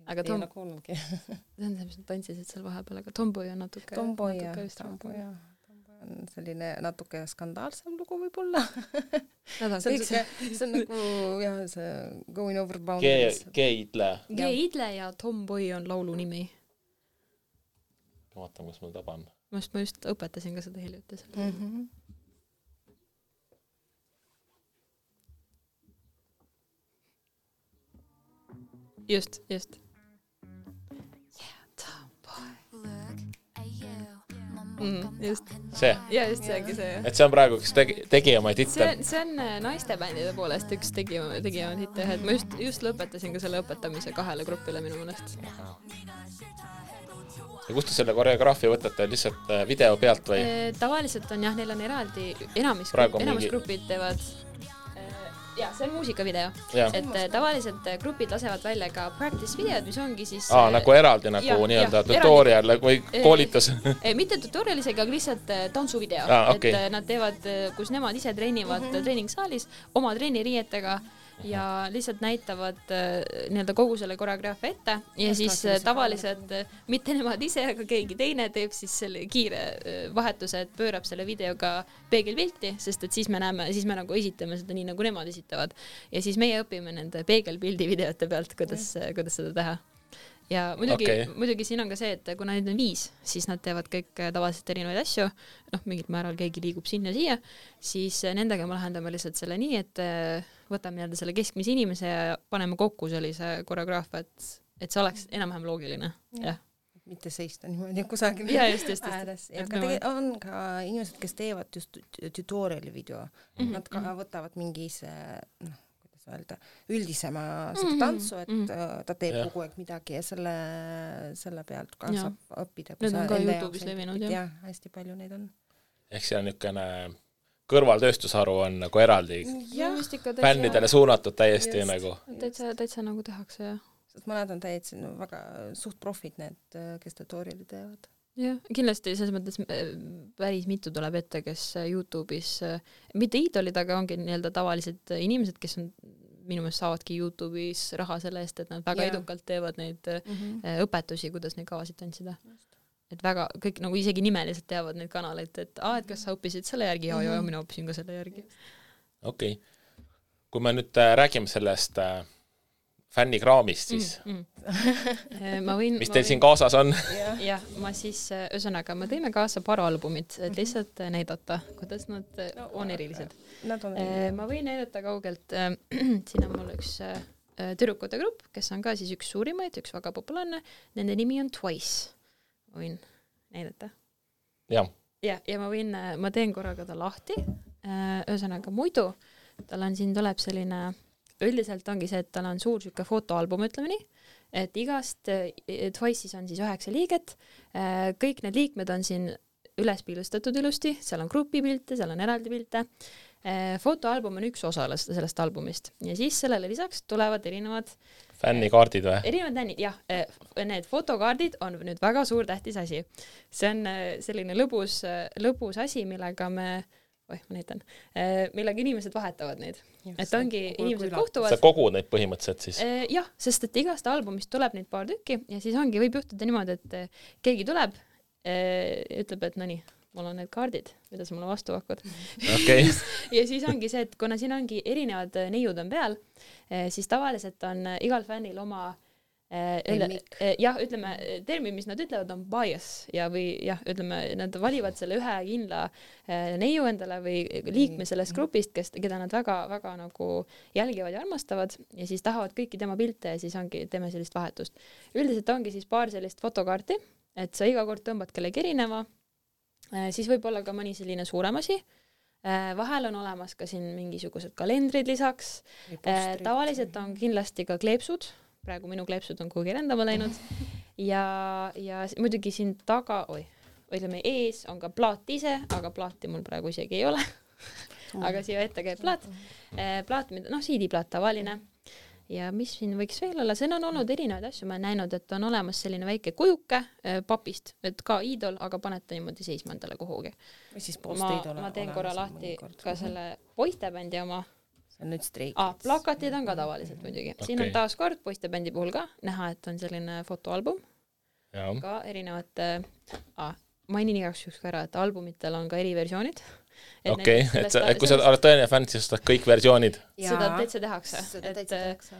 Aga see on see, mis nad tantsisid seal vahepeal, aga Tomboy on natuke... Tomboy on selline natuke skandaalsem lugu võib-olla. See on nagu, jah, see Going Over Boundaries. G-Idle. G-Idle ja Tomboy on laulu nimi. Ma vaatan, kus ma taban. Ma just õpetasin ka seda hiljuti. Just. Just. See? Ja, just seegi see. Et see on praegu üks tegijamaid hitte. See on naistebändide poolest üks tegijamaid hitte. Et ma just lõpetasin ka selle õpetamise 2 grupile minu mõnest. Ja kust te selle koreograafia võtate? Lihtsalt video pealt või? Tavaliselt on jah, neil on eraldi, enamus grupid teevad... Ja, see on muusikavideo. Et tavaliselt grupid lasevad välja ka practice videod, mis ongi siis... nagu eraldi nii-öelda tutorial või koolitus. Mitte tutorial isegi, aga lihtsalt tantsuvideo. Okay. Et nad teevad, kus nemad ise treenivad treeningsaalis oma treeniriietega ja lihtsalt näitavad nii-öelda kogu selle koreograafia ette ja siis tavaliselt mitte nemad ise, aga keegi teine teeb siis selle kiire vahetuse, et pöörab selle videoga peegelpilti, sest et siis me nagu esitame seda nii, nagu nemad esitavad. Ja siis meie õpime nende peegelpildi videote pealt, kuidas seda teha. Ja muidugi siin on ka see, et kuna neid on 5, siis nad teevad kõik tavaliselt erinevaid asju, mingil määral keegi liigub sinna-siia, siis nendega me lahendame lihtsalt selle nii, et võtame nii-öelda selle keskmise inimese ja paneme kokku sellise koreograafia, et see oleks enam-vähem loogiline. Jah. Mitte seista niimoodi kusagil ääres. On ka inimesed, kes teevad just tutoriali video. Nad ka võtavad mingis üldisema seda tantsu, et ta teeb kogu aeg midagi ja selle pealt ka saab õppida. Need on ka YouTube'is levinud, jah. Hästi palju neid on. Ehk see on niisugune kõrvaltööstusharu on nagu eraldi fännidele suunatud täiesti nagu. Täitsa nagu tehakse, jah. Sest mõned on täitsa väga suht profid need, kes tutoriali teevad. Jah, kindlasti selles mõttes päris mitu tuleb ette, kes YouTube'is, mitte iidolid, aga ongi nii-öelda tavalised inimesed, kes on minu meelest saavadki YouTube'is raha selle eest, et nad väga edukalt teevad neid õpetusi, kuidas neid kavasid tantsida. Et väga, kõik nagu isegi nimeliselt teavad neid kanaleid, et kas sa õppisid selle järgi? Ja mina õppisin ka selle järgi. Okei. Kui me nüüd räägime sellest fännikraamist, siis mis teil siin kaasas on? Jah, ma siis, ühesõnaga, me tõime kaasa paar albumit, et lihtsalt näidata, kuidas nad on erilised. Ma võin näidata kaugelt, siin on mul üks tüdrukute grupp, kes on ka siis üks suurimaid, üks väga populaarne, nende nimi on Twice. Võin näidata? Ja ma teen korraga ta lahti, ühesõnaga muidu, tal on siin tuleb selline... Üldiselt ongi see, et tal on suur süke fotoalbum, ütleme nii, et igast Twice'is on siis 9 liiget, kõik need liikmed on siin üles piilustatud ilusti, seal on grupipilte, seal on eraldi pilte, fotoalbum on üks osa sellest albumist ja siis sellele lisaks tulevad erinevad fännikaardid või? Erinevad fännid, jah, need fotokaardid on nüüd väga suur tähtis asi. See on selline lõbus asi, millega ma näitan, millega inimesed vahetavad neid. Et ongi inimesed kohtuvad. Sa kogud neid põhimõtteliselt siis? Jah, sest et igast albumist tuleb neid paar tükki ja siis ongi, võib juhtuda niimoodi, et keegi tuleb, ütleb, et no nii, mul on need kaardid, mida sa mulle vastu hakkad. Okay. Ja siis ongi see, et kuna siin ongi erinevad neiud on peal, siis tavaliselt on igal fännil oma jah, ütleme, termin, mis nad ütlevad, on bias ja või jah, ütleme, nad valivad selle ühe kindla neiu endale või liikme sellest grupist, keda nad väga nagu jälgivad ja armastavad ja siis tahavad kõiki tema pilte ja siis ongi, teeme sellist vahetust. Üldiselt ongi siis paar sellist fotokaarti, et sa iga kord tõmbad kellegi erineva, siis võib olla ka mõni selline suurem asi. Vahel on olemas ka siin mingisugused kalendrid lisaks. Tavaliselt on kindlasti ka kleepsud. Praegu minu kleepsud on kuhugi rändama läinud ja muidugi siin taga, ütleme ees on ka plaat ise, aga plaati mul praegu isegi ei ole. Aga siia ette käib plaat, CD-plaat tavaline. Ja mis siin võiks veel olla, siin on olnud erinevaid asju, ma olen näinud, et on olemas selline väike kujuke papist, et ka iidol, aga panete niimoodi seisma endale kuhugi. Ma teen korra lahti ka selle poistebändi oma. Nüüd streik. Plakatid on ka tavaliselt muidugi. Okay. Siin on taas kord poistebändi puhul ka näha, et on selline fotoalbum. Ja. Ka erinevate, mainin igaks juhuks ka ära, et albumitel on ka eri versioonid. Okei, et kui sa oled tõeline fänn, siis ostad kõik versioonid. Seda täitsa tehakse.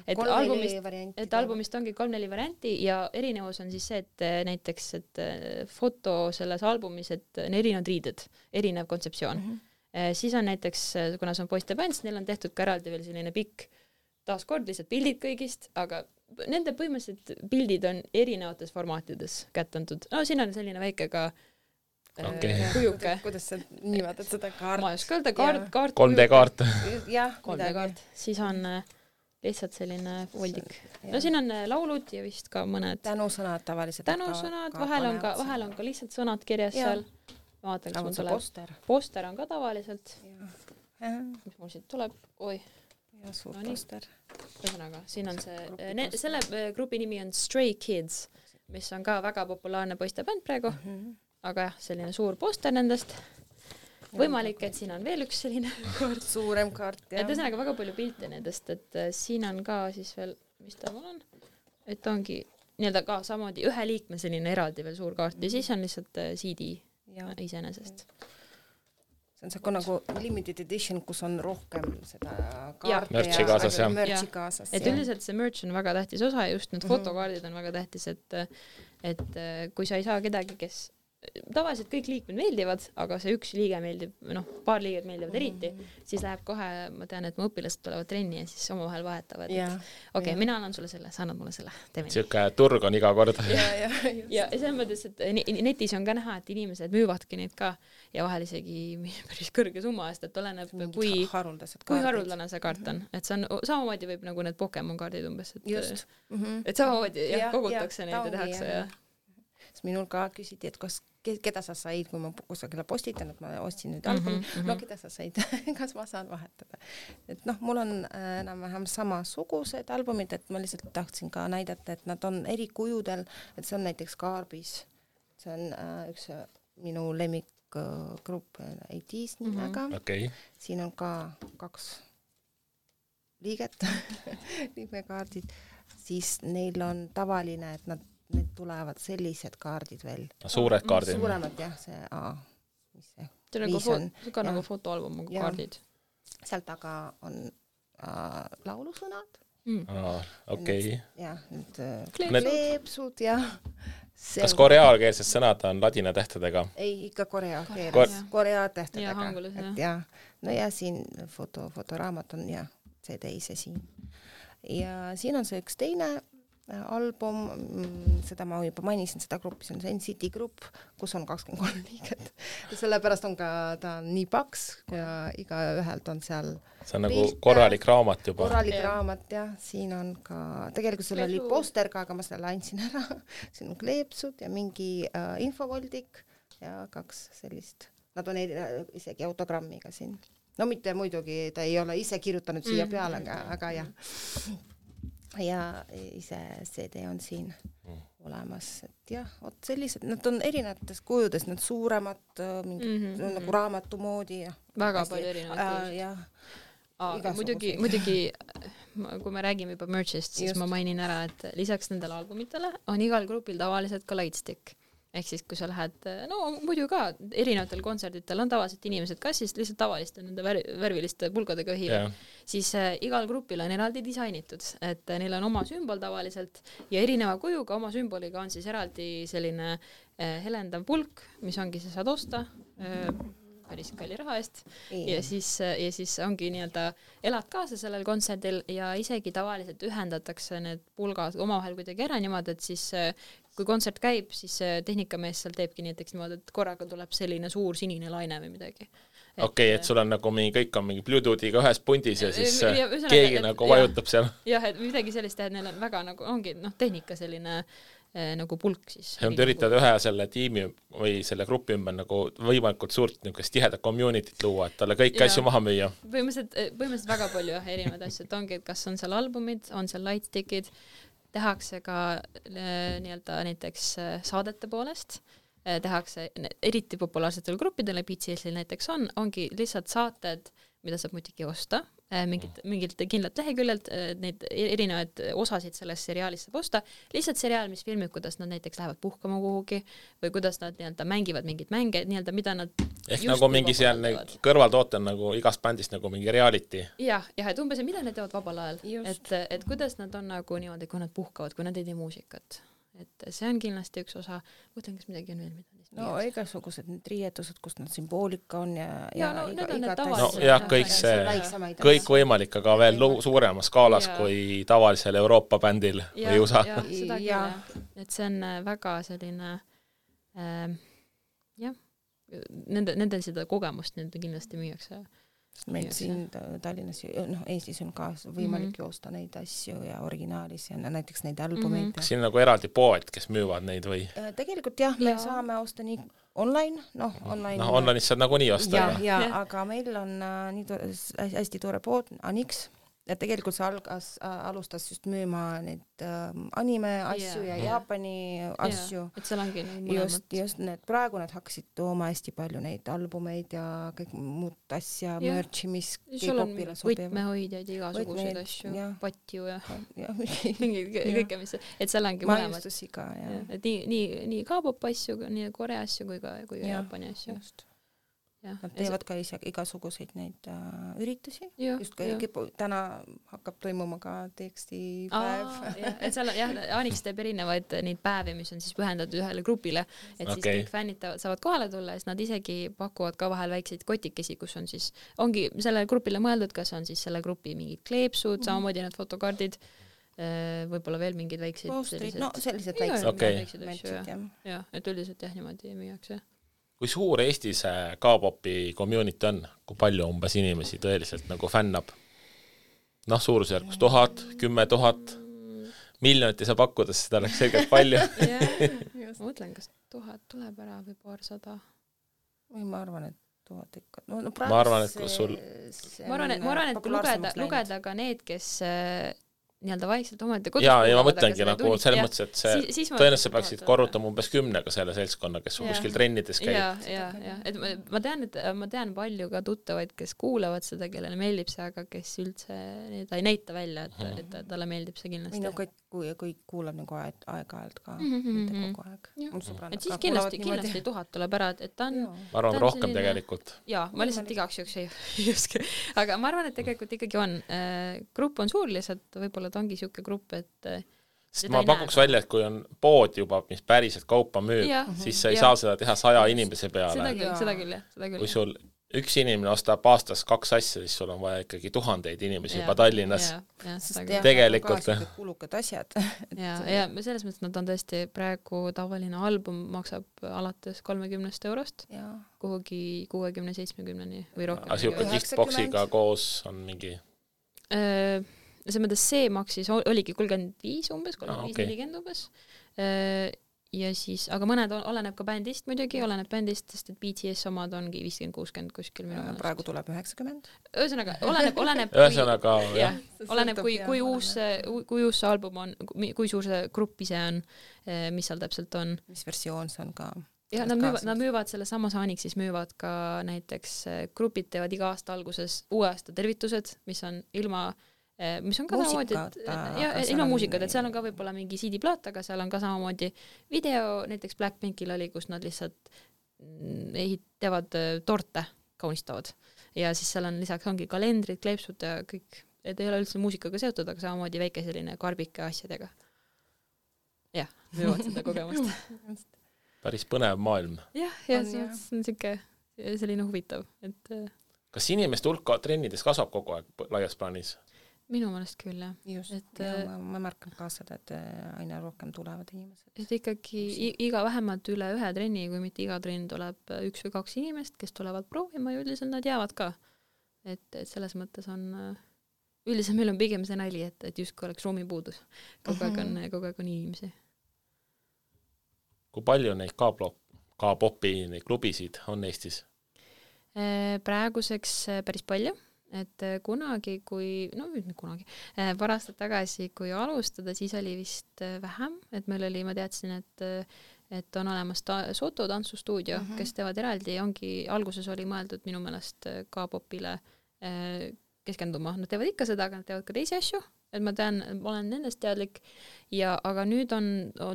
Et albumist ongi 3-4 varianti ja erinevus on siis see, et näiteks et foto selles albumis, et on erinevad riided, erinev kontseptsioon. Siis on näiteks, kuna see on poistebänd, neil on tehtud ka eraldi veel selline pikk taaskord lihtsalt pildid kõigist, aga nende põhimõtteliselt pildid on erinevates formaatides kättantud. No siin on selline väike ka kujuke. Kuidas sa nimetad seda kaart? Ma ei oska öelda, kaart. 3D-kaart. Jah, 3D-kaart. Siis on lihtsalt selline voldik. No siin on laulud ja vist ka mõned tänusõnad tavaliselt. Tänusõnad, vahel on ka lihtsalt sõnad kirjas seal. Ma vaatan, kas mul tuleb. Poster on ka tavaliselt. Mis mul siit tuleb? Oi. Ja suur poster. Ühesõnaga, siin on selle grupi nimi on Stray Kids, mis on ka väga populaarne poistebänd praegu. Aga jah, selline suur poster nendest. Võimalik, et siin on veel üks selline kaart. Suurem kaart, jah. Et ühesõnaga väga palju pilte nendest, et siin on ka siis veel, mis ta mul on? Et ongi nii-öelda ka samamoodi ühe liikme selline eraldi veel suur kaart ja siis on lihtsalt CD iseenesest. See on see nagu limited edition, kus on rohkem seda kaarte märtsi kaasas, jah. Märtsi kaasas. Et üldiselt see merch on väga tähtis osa ja just need fotokaardid on väga tähtis, et kui sa ei saa kedagi, kes tavaliselt kõik liikmed meeldivad, aga see üks liige meeldib, paar liiget meeldivad eriti, siis läheb kohe, ma tean, et mu õpilased tulevad trenni ja siis omavahel vahetavad. Okei, mina annan sulle selle, sa annad mulle selle. Siuke turg on iga kord. Ja selles mõttes, et netis on ka näha, et inimesed müüvadki neid ka ja vahel isegi päris kõrge summa eest, et oleneb, kui haruldane see kaart on. Et see on, samamoodi võib nagu need Pokemon kaardid umbes, et samamoodi kogutakse neid ja tehakse ja minul ka küsiti, et keda sa said, kui ma kusagile postitan, et ma ostsin nüüd albumi, keda sa said, kas ma saan vahetada. Et mul on enam-vähem samasugused albumid, et ma lihtsalt tahtsin ka näidata, et nad on eri kujudel, et see on näiteks Kaarbis, see on üks minu lemmikgrupp AT's nimega. Siin on ka 2 liiget, liikmekaardid, siis neil on tavaline, et need tulevad sellised kaardid veel. Suured kaardid. Suuremad, jah, see mis see? See on ka nagu fotoalbum kaardid. Seal taga on laulusõnad. Okei. Jah, need kleepsud ja kas koreaalkeelsed sõnad on ladina tähtedega? Ei, ikka korea tähtedega. No ja siin fotoraamat on ja CD ise siin. Ja siin on see üks teine album, seda ma juba mainisin, seda gruppi, see on see NCT grupp, kus on 23 liiget. Sellepärast on ka ta nii paks ja iga ühelt on seal see on nagu korralik raamat juba. Korralik raamat, jah. Siin on ka, tegelikult seal oli poster ka, aga ma selle andsin ära. Siin on kleepsud ja mingi infovoldik ja 2 sellist. Nad on isegi autogrammiga siin. No mitte muidugi, ta ei ole ise kirjutanud siia peale, aga jah. Ja ise CD on siin olemas, et jah, sellised, nad on erinevates kujudes, need suuremad, nagu raamatu moodi ja väga palju erinevaid muidugi, kui me räägime juba merchist, siis ma mainin ära, et lisaks nendele albumitele on igal grupil tavaliselt ka lightstick. ehk siis kui sa lähed, no muidu ka erinevatel kontserditel on tavaliselt inimesed, kas siis lihtsalt tavaliste nende värviliste pulkadega hiivad, siis igal grupil on eraldi disainitud, et neil on oma sümbol tavaliselt ja erineva kujuga oma sümboliga on siis eraldi selline helendav pulk, mis ongi, sa saad osta päris kalli raha eest ja siis ongi nii-öelda elad kaasa sellel kontserdil ja isegi tavaliselt ühendatakse need pulgad omavahel kuidagi ära niimoodi, et siis kui kontsert käib, siis tehnikamees seal teebki näiteks niimoodi, et korraga tuleb selline suur sinine laine või midagi. Okei, et sul on nagu kõik on mingi Bluetoothiga ühes pundis ja siis keegi nagu vajutab seal. Jah, et midagi sellist teha, et neil on väga nagu, ongi tehnika selline nagu pulk siis. Ja nad üritavad ühe selle tiimi või selle grupi ümber nagu võimalikult suurt niisugust tihedat communityt luua, et talle kõik asju maha müüa. Põhimõtteliselt väga palju erinevaid asju, et ongi, et kas on seal albumid, on seal lightstickid, tehakse ka nii-öelda näiteks saadete poolest, tehakse eriti populaarsetele gruppidele, BTS-il näiteks ongi lihtsalt saated, mida saab muidugi osta, mingilt kindlalt leheküljelt, neid erinevaid osasid sellest seriaalist saab osta, lihtsalt seriaal, mis filmib, kuidas nad näiteks lähevad puhkama kuhugi või kuidas nad nii-öelda mängivad mingit mänge, nii-öelda mida nad ehk nagu mingi seal kõrvaltoote on nagu igast bändist nagu mingi reality. Jah, et umbes, mida nad teevad vabal ajal, et kuidas nad on nagu niimoodi, kui nad puhkavad, kui nad ei tee muusikat. Et see on kindlasti üks osa, mõtlen, kas midagi on veel, mida no igasugused need riietused, kus nad sümboolika on kõik see, kõik võimalik, aga veel suuremas skaalas kui tavalisel Euroopa bändil või USA. Seda küll, et see on väga selline nendel seda kogemust nende kindlasti müüakse. Meil siin Tallinnas, Eestis on ka võimalik joosta neid asju ja originaalis ja näiteks neid albumeid. Kas siin nagu eraldi poed, kes müüvad neid või? Tegelikult jah, me saame osta nii online, online'is saad nagu nii osta. Aga meil on nii hästi tore pood, Anix, ja tegelikult see alustas just müüma neid anime asju ja Jaapani asju. Et seal ongi just need, praegu nad hakkasid tooma hästi palju neid albumeid ja kõik muud asja, merchi, mis K-popile sobivad. Võtmehoidjaid, igasuguseid asju, patju ja kõike, mis, et seal ongi mõlemad. Maiustusi ka, et nii K-pop asju, nii Korea asju kui Jaapani asju. Just. Nad teevad ka igasuguseid neid üritusi. Just täna hakkab toimuma ka tekstipäev. Et seal Anix teeb erinevaid neid päevi, mis on siis pühendatud ühele grupile, et siis kõik fännid saavad kohale tulla ja siis nad isegi pakuvad ka vahel väikseid kotikesi, kus on siis, ongi sellele grupile mõeldud, kas on siis selle grupi mingid kleepsud, samamoodi need fotokardid, võib-olla veel mingid väikseid sellised väiksed asju. Et üldiselt niimoodi müüakse. Kui suur Eestis K-popi community on? Kui palju umbes inimesi tõeliselt nagu fännab? Suurusjärgus 1000, 10 000, miljonit ei saa pakkuda, seda oleks selgelt palju. Ma mõtlen, kas 1000 tuleb ära või paarsada? Või ma arvan, et 1000 ikka. Ma arvan, et kui sul... Ma arvan, et kui lugeda ka need, kes... nii-öelda vaikselt omaette kodus. Ja ma mõtlengi nagu selles mõttes, et see tõenäoliselt peaksid korrutama umbes 10 selle seltskonna, kes kuskil trennides käib. Et ma tean palju ka tuttavaid, kes kuulavad seda, kellele meeldib see, aga kes üldse ta ei näita välja, et talle meeldib see kindlasti. Kui kuulab nagu aeg-ajalt ka, mitte kogu aeg. Et siis kindlasti 1000 tuleb ära, et ta on... Ma arvan rohkem tegelikult. Ma lihtsalt igaks juks ei uske. Aga ma arvan, et tegelikult ikkagi on. Grupp on suur lihtsalt, võib-olla ta ongi siuke grupp, et sest ma pakuks välja, et kui on pood juba, mis päriselt kaupa müüb, siis sa ei saa seda teha 100 inimese peale. Seda küll. Kui sul üks inimene ostab aastas 2 asja, siis sul on vaja ikkagi 1000 inimesi juba Tallinnas. Tegelikult. Kulukad asjad. Ja selles mõttes nad on tõesti praegu tavaline album maksab alates 30 eurost kuhugi 60-70 või rohkem. Siuke giftboxiga koos on mingi... See mõttes see maksis, oligi 35 umbes, 35-40 umbes. Ja siis, aga mõned oleneb ka bändist muidugi, oleneb bändist, sest et BTS omad ongi 50-60 kuskil minu mõnest. Praegu tuleb 90. Ühesõnaga, oleneb kui uus see album on, kui suur see grupp ise on, mis seal täpselt on. Mis versioon see on ka? Ja nad müüvad selle samas Anixis müüvad ka näiteks grupid teevad iga aasta alguses uue aasta tervitused, mis on ilma mis on ka samamoodi, et ilma muusikat, et seal on ka võib-olla mingi CD-plaat, aga seal on ka samamoodi video, näiteks Blackpinkil oli, kus nad lihtsalt teevad torte, kaunistavad. Ja siis seal on lisaks ongi kalendrid, kleepsud ja kõik, et ei ole üldse muusikaga seotud, aga samamoodi väike selline karbike asjadega. Jah, võivad seda kogemust. Päris põnev maailm. Jah, see on selline huvitav. Et... Kas inimeste hulka trennides kasvab kogu aeg laias plaanis? Minu mõnest küll, jah. Just, ma märkan ka seda, et aina rohkem tulevad inimesed. Et ikkagi iga vähemalt üle ühe trenni, kui mitte iga trenn tuleb 1 või 2 inimest, kes tulevad proovima ja üldiselt nad jäävad ka. Et selles mõttes on... Üldiselt meil on pigem see nali, et justkui oleks ruumipuudus. Kogu aeg on inimesi. Kui palju neid K-popi klubisid on Eestis? Praeguseks päris palju, et kunagi, paar aastat tagasi, kui alustada, siis oli vist vähem, et meil oli, ma teadsin, et on olemas Soto tantsustuudio, kes teevad eraldi, alguses oli mõeldud minu meelest K-popile keskenduma. Nad teevad ikka seda, aga nad teevad ka teisi asju, et ma olen nendest teadlik, aga nüüd on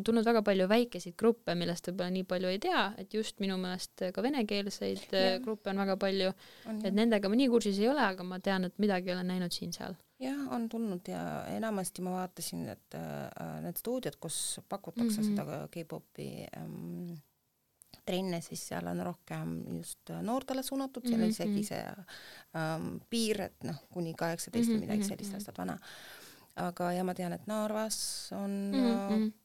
tulnud väga palju väikeseid gruppe, millest võib-olla nii palju ei tea, et just minu meelest ka venekeelseid gruppe on väga palju, et nendega ma nii kursis ei ole, aga ma tean, et midagi olen näinud siin-seal. Jah, on tulnud ja enamasti ma vaatasin, et need stuudiod, kus pakutakse seda K-popi trenne, siis seal on rohkem just noortele suunatud, seal on isegi see piir, et kuni 18 midagi sellist aastat vana. Aga ja ma tean, et Narvas on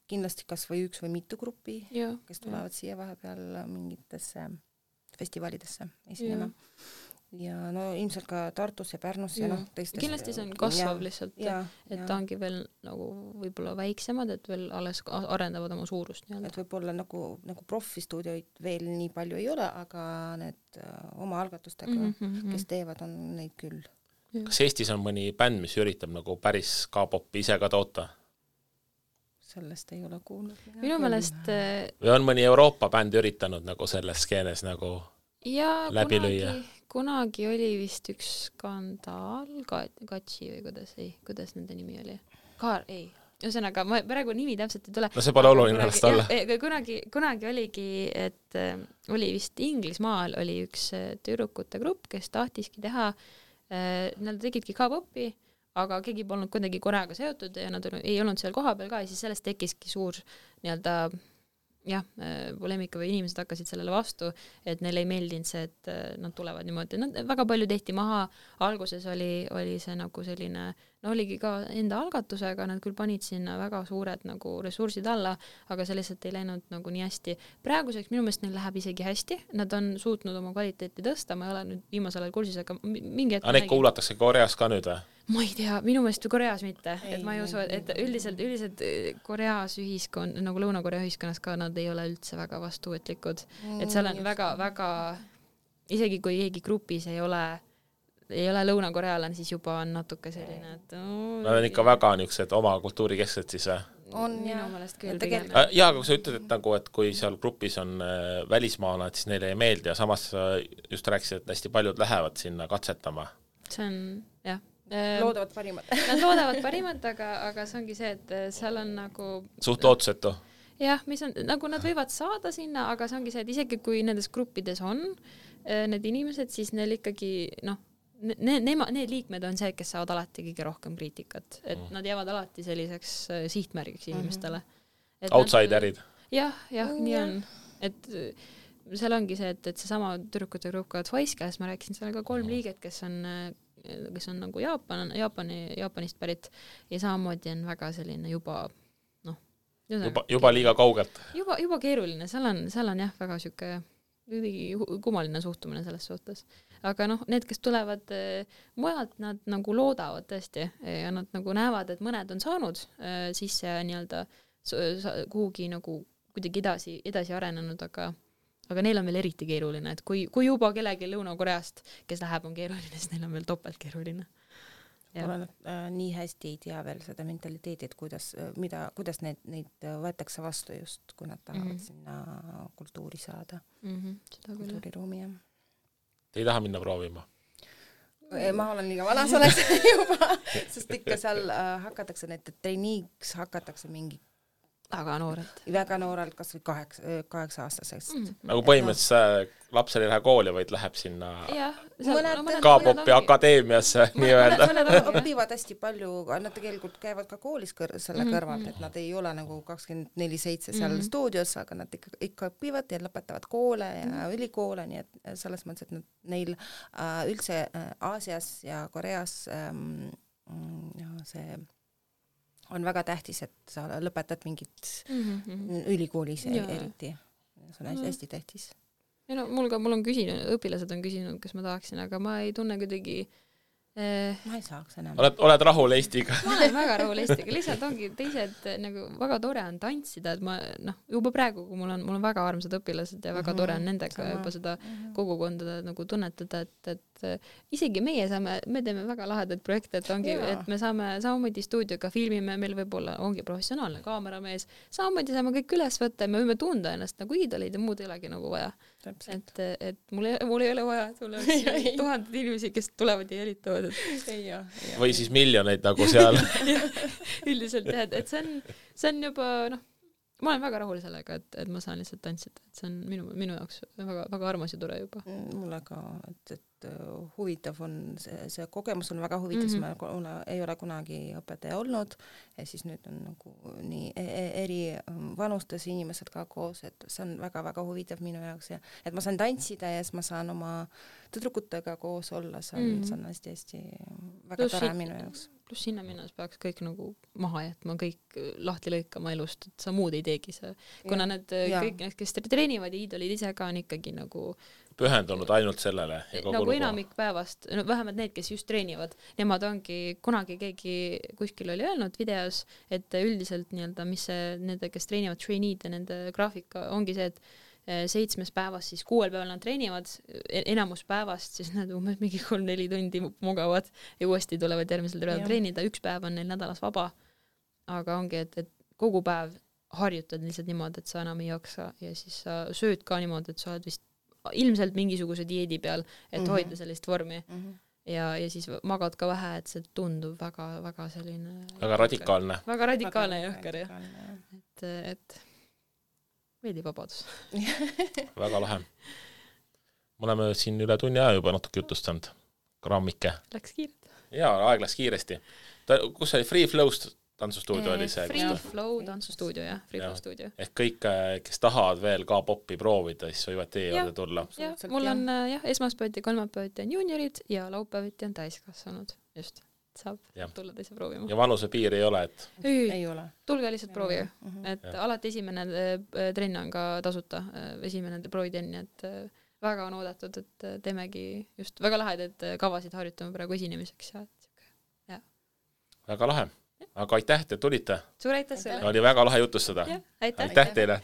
kindlasti kas või 1 või mitu gruppi, kes tulevad siia vahepeal mingitesse festivalidesse esinema. Ja ilmselt ka Tartus ja Pärnus ja teistes. Kindlasti see on kasvav lihtsalt, et ta ongi veel nagu võib-olla väiksemad, et veel alles arendavad oma suurust. Et võib-olla nagu profistuudioid veel nii palju ei ole, aga need oma algatustega, kes teevad, on neid küll. Kas Eestis on mõni bänd, mis üritab nagu päris K-popi ise ka toota? Sellest ei ole kuulnud. Minu meelest... Või on mõni Euroopa bänd üritanud nagu selles skeenes nagu läbi lüüa? Kunagi oli vist üks skandaal, Katsi või kuidas nende nimi oli? Ühesõnaga, ma praegu nimi täpselt ei tule. No see pole oluline ennast alla. Kunagi oligi, et oli vist Inglismaal oli üks tüdrukute grupp, kes tahtiski teha, nad tegidki K-popi, aga keegi polnud kuidagi Koreaga seotud ja nad ei olnud seal kohapeal ka ja siis sellest tekkiski suur poleemika või inimesed hakkasid sellele vastu, et neile ei meeldinud see, et nad tulevad niimoodi. Väga palju tehti maha, alguses oli see nagu selline, oligi ka enda algatusega, nad küll panid sinna väga suured nagu ressursid alla, aga see lihtsalt ei läinud nagu nii hästi. Praeguseks minu meelest neil läheb isegi hästi, nad on suutnud oma kvaliteeti tõsta, ma ei ole nüüd viimasel ajal kursis, aga mingi hetk... Neid kuulatakse Koreas ka nüüd või? Ma ei tea, minu meelest Koreas mitte, et ma ei usu, et üldiselt Koreas ühiskond, nagu Lõuna-Korea ühiskonnas ka, nad ei ole üldse väga vastuvetlikud, et seal on väga, isegi kui keegi grupis ei ole Lõuna-Korealane, siis juba on natuke selline, et nad on ikka väga niisugused oma kultuurikesksed siis on minu meelest küll. Aga kui sa ütled, et kui seal grupis on välismaalad, siis neile ei meeldi ja samas just rääkisid, et hästi paljud lähevad sinna katsetama. See on, jah. Loodavad parimat. Nad loodavad parimat, aga see ongi see, et seal on nagu... Suht ootusetu. Jah, mis on, nagu nad võivad saada sinna, aga see ongi see, et isegi kui nendes gruppides on need inimesed, siis neil ikkagi, need liikmed on see, kes saavad alati kõige rohkem kriitikat. Et nad jäävad alati selliseks sihtmärgiks inimestele. Outsiderid. Jah, nii on. Et seal ongi see, et see sama tüdrukute grupp ka Twice, kes ma rääkisin, seal on ka 3 liiget, kes on nagu Jaapanist pärit ja samamoodi on väga selline juba liiga kaugelt. Juba keeruline, seal on jah väga siuke kummaline suhtumine selles suhtes. Aga need, kes tulevad mujalt, nad nagu loodavad tõesti ja nad nagu näevad, et mõned on saanud sisse nii-öelda kuhugi nagu kuidagi edasi arenenud, aga neil on veel eriti keeruline, et kui juba kellegi Lõuna-Koreast, kes läheb, on keeruline, siis neil on veel topelt keeruline. Nii hästi ei tea veel seda mentaliteeti, et kuidas neid võetakse vastu just, kui nad tahavad sinna kultuuri saada. Kultuuriruumi, jah. Te ei taha minna proovima? ma olen liiga vana selleks juba, sest ikka seal hakatakse, need treeniiks hakatakse mingi väga noorelt, kas või 8-aastasest. Nagu põhimõtteliselt lapsel ei lähe kooli, vaid läheb sinna K-popi akadeemiasse nii-öelda. Mõned õpivad hästi palju, nad tegelikult käivad ka koolis selle kõrvalt, et nad ei ole nagu 24/7 seal stuudios, aga nad ikka õpivad ja lõpetavad koole ja ülikoole, nii et selles mõttes, et neil üldse Aasias ja Koreas see on väga tähtis, et sa lõpetad mingit ülikoolis eriti. See on hästi tähtis. Ja no, mul on küsinud, õpilased on küsinud, kas ma tahaksin, aga ma ei tunne kuidagi ma ei saaks enam. Oled rahul Eestiga? Ma olen väga rahul Eestiga, lihtsalt ongi teised, nagu väga tore on tantsida, et ma, juba praegu, kui mul on väga armsad õpilased ja väga tore on nendega juba seda kogukonda nagu tunnetada, et isegi me teeme väga lahedaid projekte, et ongi, et me saame samamoodi stuudioga filmime, meil võib-olla ongi professionaalne kaameramees, samamoodi saame kõik üles võtta ja me võime tunda ennast nagu iidolid ja muud ei olegi nagu vaja. Et mul ei ole vaja, et mul oleks 1000 inimesi, kes tulevad ja jälitavad. Või siis miljoneid nagu seal. Üldiselt jah, et see on juba, ma olen väga rahul sellega, et ma saan lihtsalt tantsida, et see on minu jaoks väga, väga armas ja tore juba. Mulle ka, et huvitav on, see kogemus on väga huvitav, ma ei ole kunagi õpetaja olnud ja siis nüüd on nagu nii eri vanustes inimesed ka koos, et see on väga-väga huvitav minu jaoks ja et ma saan tantsida ja siis ma saan oma tüdrukutega koos olla, see on hästi-hästi väga tore minu jaoks. Pluss sinna minnes peaks kõik nagu maha jätma, kõik lahti lõikama elust, et sa muud ei teegi see. Kuna kõik need, kes treenivad ja iidolid ise ka on ikkagi nagu pühendunud ainult sellele. Nagu enamik päevast, vähemalt need, kes just treenivad, nemad ongi, kunagi keegi kuskil oli öelnud videos, et üldiselt nii-öelda, mis nende, kes treenivad traineed ja nende graafika ongi see, et 7 päevast, siis 6 päeval nad treenivad, enamus päevast, siis nad umbes mingi 3-4 tundi mugavad ja uuesti tulevad järgmisel päeval treenida, 1 päev on neil nädalas vaba, aga ongi, et kogu päev harjutad lihtsalt niimoodi, et sa enam ei jaksa ja siis sa sööd ka niimoodi, et sa oled vist ilmselt mingisuguse dieedi peal, et hoida sellist vormi ja siis magad ka vähe, et see tundub väga selline väga radikaalne jõhker jah. Et meeldib vabadus. Väga lahe. Me oleme siin üle tunni aja juba natuke jutustanud. Grammike. Läks kiirelt. Jaa, aeg läks kiiresti. Kus oli Free Flow'st tantsustuudio oli see? Free Flow tantsustuudio, jah. Free Flow stuudio. Ehk kõik, kes tahavad veel K-popi proovida, siis võivad teie juurde tulla. Jah, mul on esmaspäeviti, kolmapäeviti on juuniorid ja laupäeviti on täiskasvanud. Just. Saab tulla teise proovima. Ja vanuse piir ei ole, et? Ei ole. Tulge lihtsalt proovige. Et alati esimene trenn on ka tasuta, esimene proovitrenn, et väga on oodatud, et teemegi just väga lahedad kavasid harjutame praegu esinemiseks. Ja. Väga lahe. Aga aitäh, te tulite. Suur aitäh sulle. Oli väga lahe jutustada. Aitäh teile.